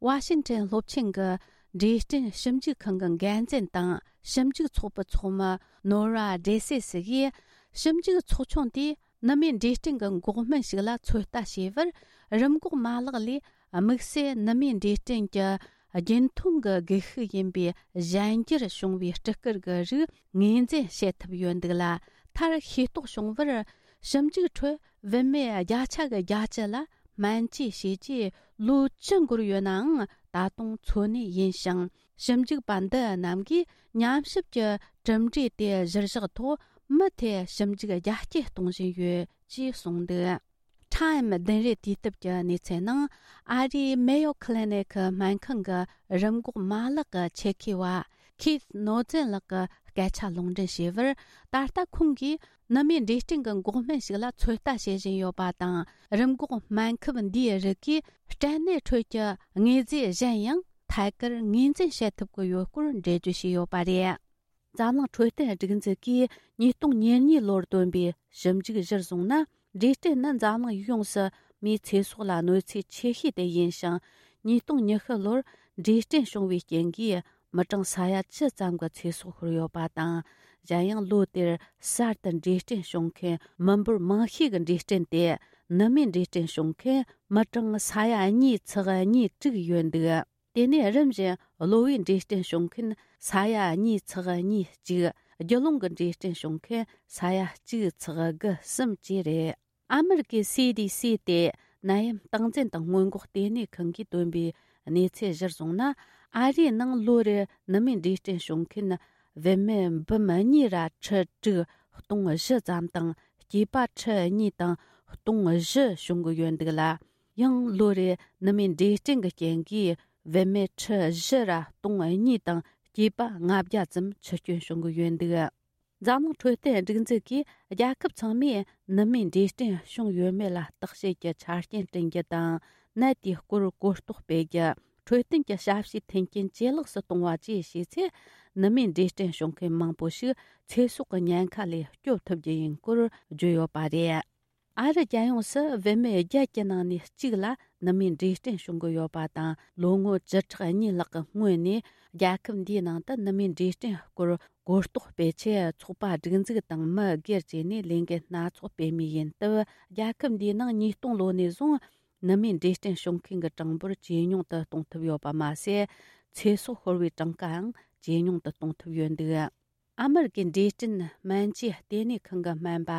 ཝ་ཤིང་ཊོན་སློབ་ཆེན་གྱི་འབྲས་སྐྲན་ཞིབ་འཇུག་ཁང་གི་འགན་འཛིན་དང་ཞིབ་འཇུག་ཚོགས་པའི་ཚོགས་མི་Nora Dresses གིས། ཞིབ་འཇུག་ཚོགས་ཆུང་དེས་ནུ་མའི་འབྲས་སྐྲན་གྱི་འགོག་སྨན་ཞིག་ལ་ཚོད་ལྟ་བྱས་པར། རིམས་འགོག་མ་ལག་ལས་དམིགས་བསལ་ནུ་མའི་འབྲས་སྐྲན་གྱི་རྒྱུན་མཐོང་གི་སྒུལ་ཤུགས་ཡིན་པའི་གཞན་འགྱུར་བྱུང་བའི་སྤྲི་དཀར་གྱི་རིགས་ངོས་འཛིན་བྱེད་ཐུབ་ཡོད་འདུག་ལ། མཐར་ཤེས་རྟོགས་བྱུང་བར། ཞིབ་འཇུག་ཁྲོད་བུད་མེད་བརྒྱ་ཆ་གི་བརྒྱད་ཅུ་ལ་སྨན་བཅོས་བྱས་རྗེས་ལོ་བཅུ་འགོར་ཡོད་ནའང་ ད་དུང་འཚོ་གནས་ཡིན་ཞིང་། ཞིབ་འཇུག་པ་འདི་རྣམས་ཀྱིས་ཉམས་ཞིབ་ཀྱི་གྲུབ་འབྲས་དེ་གཞིར་བཞག་ཐོག་མུ་མཐུད་ཞིབ་འཇུག་རྒྱ་སྐྱེད་གཏོང་བཞིན་ཡོད་ཅེས་གསུངས་འདུག། Time་བདུན་རེ་དུས་དེབ་ཀྱི་གནས་ཚུལ་ནང་། ཨ་རིའི་Mayo Clinic་སྨན་ཁང་གི་རིམས་འགོག་མ་ལག་གི་ཆེད་མཁས་པ་Keith Noesen་ལགས་ཀྱིས་སྐད་ཆ་ལུང་འདྲེན་བྱས་པར། ད་ལྟ་ཁོང་གིས་ནུ་མའི་འབྲས་སྐྲན་གྱི་འགོག་སྨན་ཞིག་ལ་ཚོད་ལྟ་བྱེད་བཞིན་ཡོད་པ་དང་། རིམས་འགོག་སྨན་ཁབ་འདིའི་རིགས་ཀྱིས་སྐྲན་ནད་ཁྲོད་ཀྱི་དངོས་རྫས་གཞན་ཡང་ཐད་ཀར་ངོས་འཛིན་བྱེད་ཐུབ་ཀྱི་ཡོད་སྐོར་འགྲེལ་བརྗོད་བྱས་ཡོད་པ་རེད། འཛམ་གླིང་འཕྲོད་བསྟེན་སྒྲིག་འཛུགས་ཀྱིས་ཉིས་སྟོང་ཉེར་གཉིས་ལོར་བཏོན་པའི་ཞིབ་འཇུག་གཞིར་བཟུང་ན། འབྲས་སྐྲན་ནི་འཛམ་གླིང་ཡོངས་སུ་མིའི་ཚེ་སྲོག་ལ་གནོད་འཚེ་ཆེ་ཤོས་དེ་ཡིན་ཞིང་། ཉིས་སྟོང་ཉི་ཤུ་ལོར་འབྲས་སྐྲན་བྱུང་བའི་རྐྱེན་གྱིས་མི་གྲངས་ས་ཡ་བཅུ་ཙམ་གྱི་ཚེ་སྲོག་ཤོར་ཡོད་པ་དང་། གཞན་ཡང་ལོ་དེར་གསར་དུ་འབྲས་སྐྲན་བྱུང་མཁན་མི་འབོར་མང་ཤོས་ཀྱི་འབྲས་སྐྲན་དེ་ནུ་མའི་འབྲས་སྐྲན་བྱུང་མཁན་མི་གྲངས་ས་ཡ་གཉིས་ཚེག་གཉིས་དྲུག་ཡོད་འདུག། དེ་ནས་རིམ་བཞིན་གློ་བའི་འབྲས་སྐྲན་བྱུང་མཁན་ས་ཡ་གཉིས་ཚེག་གཉིས་གཅིག། རྒྱུ་ཀླུང་གི་འབྲས་སྐྲན་བྱུང་མཁན་ས་ཡ་གཅིག་ཚེག་དགུ་གསུམ་བཅས་རེད། ཨ་མེ་རི་ཀའི་སི་ཌི་སི་སྟེ་ནད་ཡམས་སྟངས་འཛིན་དང་སྔོན་འགོག་ལྟེ་གནས་ཁང་གིས་བཏོན་པའི་གནས་ཚུལ་གཞིར་བཟུང་ན། ཨ་རིའི་ནང་ལོ་རེར་ནུ་མའི་འབྲས་སྐྲན་བྱུང་མཁན་བུད་མེད་འབུམ་གཉིས་ར་ཁྲི་དྲུག་སྟོང་བཞི་ཙམ་དང་། སྐྱེས་པ་ཁྲི་གཉིས་དང་སྟོང་བཞི་བྱུང་གི་ཡོད་འདུག་ལ། ཡང་ལོ་རེར་ནུ་མའི་འབྲས་སྐྲན་གྱི་རྐྱེན་གྱིས་བུད་མེད་ཁྲི་བཞི་ར་སྟོང་གཉིས་དང་སྐྱེས་པ་ལྔ་བརྒྱ་ཙམ་འཆི་སྐྱོན་བྱུང་གི་ཡོད་འདུག། འཛམ་གླིང་འཕྲོད་བསྟེན་སྒྲིག་འཛུགས་ཀྱིས་རྒྱལ་ཁབ་ཚང་མས་ནུ་མའི་འབྲས་སྐྲན་བྱུང་ཡོད་མེད་ལ་བརྟག་དཔྱད་ཀྱི་ཆ་རྐྱེན་བསྐྲུན་རྒྱུ་དང་། ནད་དེའི་སྐོར་གོ་རྟོགས་སྤེལ་རྒྱུ། འཕྲོད་བསྟེན་གྱི་ཞབས་ཞུའི་མཐུན་རྐྱེན་ཇེ་ལེགས་སུ་གཏོང་བ་བཅས་བྱས་ཚེ། ནུ་མའི་འབྲས་སྐྲན་བྱུང་མཁན་མང་པོ་ཞིག་ཚེ་སྲོག་གི་ཉེན་ཁ་ལས་སྐྱོབ་ཐུབ་རྒྱུ་ཡིན་སྐོར་བརྗོད་ཡོད་པ་རེད། ཨ་རི་རྒྱལ་ཡོངས་སུ་བུད་མེད་བརྒྱད་ཀྱི་ནང་ནས་གཅིག་ལ་ནུ་མའི་འབྲས་སྐྲན་བྱུང་གི་ཡོད་པ་དང་། ལོ་ངོ་བཅུ་ཕྲག་གཉིས་ལྷག་གི་སྔོན་ནས་རྒྱལ་ཁབ་འདིའི་ནང་དུ་ནུ་མའི་འབྲས་སྐྲན་སྐོར་གོ་རྟོགས་སྤེལ་ཆེད། ཚོགས་པ་སྒྲིག་འཛུགས་དང་མི་སྒེར་བཅས་ནས་ལས་འགུལ་སྣ་ཚོགས་སྤེལ་མུས་ཡིན་སྟབས། རྒྱལ་ཁབ་འདིའི་ནང་ཉིས་སྟོང་ལོ་ནས་བཟུང་ནུ་མའི་འབྲས་སྐྲན་བྱུང་མཁན་གྱི་གྲངས་འབོར་ཇེ་ཉུང་དུ་གཏོང་ཐུབ་ཡོད་པ་མ་ཟད། ཚེ་སྲོག་ཤོར་བའི་གྲངས་ཀའང་ཇེ་ཉུང་དུ་གཏོང་ཐུབ་ཡོད་འདུག། ཨ་མེ་རི་ཀའི་འབྲས་སྐྲན་སྨན་བཅོས་ལྟེ་གནས་ཁང་གི་སྨན་པ་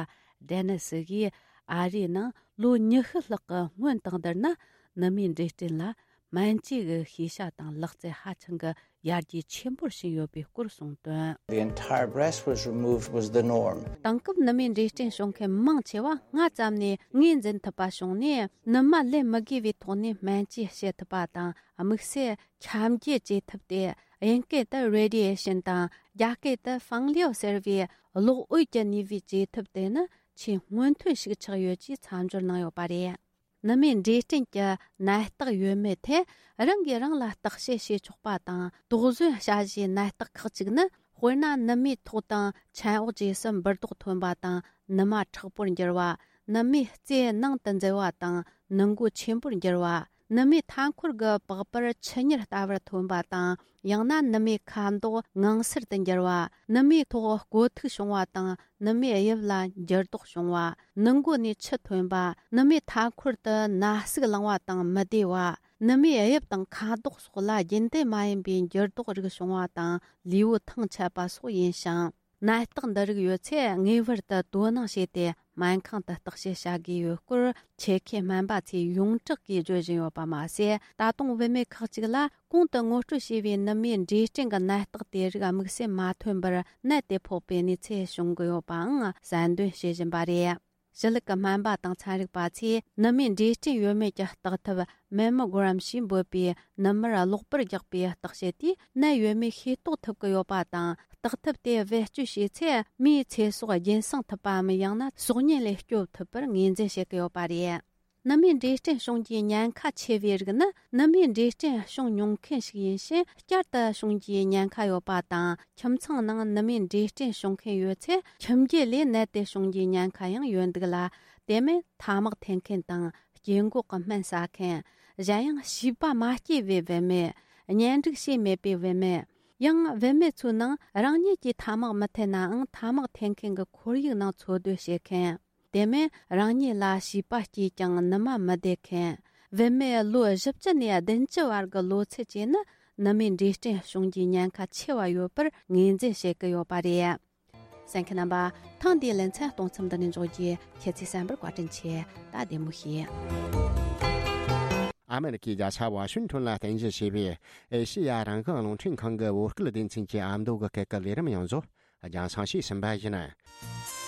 ཌེ་ནི་སི་གིས། ཨ་རིའི་ནང་ལོ་ཉི་ཤུ་ལྷག་གི་སྔོན་དང་བསྡུར་ན། ནུ་མའི་འབྲས་སྐྲན་ལ་སྨན་བཅོས་ཀྱི་ཤེས་བྱ་དང་ལག་རྩལ་ཧ་ཅང་གི་ཡར་རྒྱས་ཆེན་པོར་ཕྱིན་ཡོད་པའི་སྐོར་གསུངས་དོན། The entire breast was removed was the norm. དེང་སྐབས་ནུ་མའི་འབྲས་སྐྲན་བྱུང་མཁན་མང་ཆེ་བ་ངོས་འཛིན་ཐུབ་པ་བྱུང་ནས། ནུ་མ་ལེན་མི་དགོས་པའི་ཐོག་ནས་སྨན་བཅོས་བྱེད་ཐུབ་པ་དང་། དམིགས་བསལ་ཁྱབ་འགྱེད་བྱེད་ཐབས་ཏེ། དབྱིན་སྐད་དུ་radiation་དང་། རྒྱ་སྐད་དུ་ཕང་ལིའོ་ཟེར་བའི་གློག་འོད་ཀྱི་ནུས་པའི་བྱེད་ཐབས་དེ་ནི་ཆེས་སྔོན་ཐོན་ཞིག་ཆགས་ཡོད་ཅེས་མཚམས་སྦྱོར་གནང་ཡོད་པ་རེད། ནུ་མའི་འབྲས་སྐྲན་གྱི་ནད་རྟགས་ཡོད་མེད་ཐད་རང་གིས་རང་ལ་བརྟག་དཔྱད་བྱེད་ཆོག་པ་དང་། དོགས་ཟོན་བྱ་གཞིའི་ནད་རྟགས་ཁག་ཅིག་ནི། དཔེར་ན། ནུ་མའི་ཐོག་དང་མཆན་འོག་བཅས་སུ་འབུར་རྡོག་ཐོན་པ་དང་། ནུ་མ་མཁྲེགས་པོར་འགྱུར་བ། ནུ་མའི་རྩེ་ནང་དུ་འཛུལ་བ་དང་། ནུ་མགོ་ཆེན་པོར་འགྱུར་བ། ནུ་མའི་མཐའ་འཁོར་གྱི་པགས་པར་ཆུ་གཉེར་ལྟ་བུར་ཐོན་པ་དང་། ཡང་ན་ནུ་མའི་ཁ་མདོག་ངང་སེར་དུ་འགྱུར་བ། ནུ་མའི་ཐོག་རྐོ་ཐིག་བྱུང་བ་དང་། ནུ་མའི་དབྱིབས་ལ་འགྱུར་ལྡོག་བྱུང་བ། ནུ་མགོ་ནས་ཆུ་ཐོན་པ། ནུ་མའི་མཐའ་འཁོར་དུ་ན་ཟུག་ལངས་པ་དང་མི་བདེ་བ། ནུ་མའི་དབྱིབས་དང་ཁ་དོག་སོགས་ལ་རྒྱུན་ལྡན་མ་ཡིན་པའི་འགྱུར་ལྡོག་རིགས་བྱུང་བ་དང་། ལུས་པོ་ཐང་ཆད་པ་སོགས་ཡིན་ཞིང་། ནད་རྟགས་འདི་རིགས་ཡོད་ཚེ་ངེས་པར་དུ་དོ་སྣང་བྱས་ཏེ་སྨན་ཁང་དུ་བརྟག་དཔྱད་བྱ་དགོས་ཡོད་སྐོར་ཆེད་མཁས་སྨན་པ་ཚོས་ཡོངས་གྲགས་ཀྱིས་བརྗོད་བཞིན་ཡོད་པ་མ་ཟད། ད་དུང་བུད་མེད་ཁག་ཅིག་ལ་གོང་དུ་ངོ་སྤྲོད་བྱས་པའི་ནུ་མའི་འབྲས་སྐྲན་གྱི་ནད་རྟགས་དེ་རིགས་དམིགས་བསལ་མ་ཐོན་པར་ནད་དེ་ཕོག་པའི་གནས་ཚུལ་བྱུང་གི་ཡོད་པའང་གསལ་འདོན་བྱེད་བཞིན་པ་རེད། ཞི་ལུགས་ཀྱི་སྨན་པ་དང་ཚན་རིག་པ་ཚོས་ནུ་མའི་འབྲས་སྐྲན་ཡོད་མེད་ཀྱི་བརྟག་ཐབས་Mammogram་ཞེས་འབོད་པའི་ནུ་མར་གློག་པར་རྒྱག་པའི་བརྟག་དཔྱད་དེས་ནད་ཡོད་མེད་ཤེས་རྟོགས་ཐུབ་ཀྱི་ཡོད་པ་དང་། བརྟག་ཐབས་དེ་བེད་སྤྱོད་བྱས་ཚེ་མིའི་ཚེ་སྲོག་རྒྱུན་སྲུང་ཐུབ་པའམ། ཡང་ན་སྲོག་ཉེན་ལས་སྐྱོབ་ཐུབ་པར་ངོས་འཛིན་བྱེད་ཀྱི་ཡོད་པ་རེད། ནུ་མའི་འབྲས་སྐྲན་བྱུང་རྒྱུའི་ཉེན་ཁ་ཆེ་བའི་རིགས་ནི། ནུ་མའི་འབྲས་སྐྲན་བྱུང་མྱོང་མཁན་ཞིག་ཡིན་ཕྱིན་བསྐྱར་དུ་བྱུང་རྒྱུའི་ཉེན་ཁ་ཡོད་པ་དང་། ཁྱིམ་ཚང་ནང་ནུ་མའི་འབྲས་སྐྲན་བྱུང་མཁན་ཡོད་ཚེ། ཁྱིམ་རྒྱུད་ལས་ནད་དེ་བྱུང་རྒྱུའི་ཉེན་ཁ་ཡང་ཡོད་འདུག་ལ། དེ་མིན་ཐ་མག་འཐེན་མཁན་དང་། སྐྱེ་འགོག་གི་སྨན་ཟ་མཁན། གཞན་ཡང་བྱིས་པ་མ་སྐྱེས་པའི་བུད་མེད། གཉེན་སྒྲིག་བྱས་མེད་པའི་བུད་མེད། ཡང་བུད་མེད་ཚོའི་ནང་རང་ཉིད་ཀྱིས་ཐ་མག་མི་འཐེན་ནའང་ཐ་མག་འཐེན་མཁན་གྱི་ཁོར་ཡུག་ནང་འཚོ་སྡོད་བྱེད་མཁན། དེ་མིན་རང་ཉིད་ལ་བྱིས་པ་སྐྱེས་ཀྱང་ནུ་མ་མི་བདེ་མཁན། བུད་མེད་ལོ་བཞི་བཅུ་ནས་བདུན་ཅུ་བར་གྱི་ལོ་ཚད་བཅས་ནི་ནུ་མའི་འབྲས་སྐྲན་བྱུང་རྒྱུའི་ཉེན་ཁ་ཆེ་བ་ཡོད་པར་ངོས་འཛིན་བྱེད་ཀྱི་ཡོད་པ་རེད། གསན་མཁན་རྣམ་པ། ཐེངས་འདིའི་ལེ་ཚན་གཏོང་མཚམས་འདི་ནས་འཇོག་རྒྱུ། ཁྱེད་ཚོས་གསན་པར་བཀའ་དྲིན་ཆེ། ད་བདེ་མོ་བྱོས། ཨ་མེ་རི་ཀའི་རྒྱལ་ས་ཝ་ཤིང་ཊོན་ལ་རྟེན་གཞི་བྱས་པའི་ཨེ་ཤེ་ཡ་རང་དབང་རླུང་འཕྲིན་ཁང་གི་བོད་སྐད་སྡེ་ཚན་གྱི་ཨ་མདོ་གི་སྐད་ཀྱི་ལས་རིམ་ཡོངས་རྫོགས་རྒྱང་སྲིང་ཞུས་ཟིན་པ་ཡིན།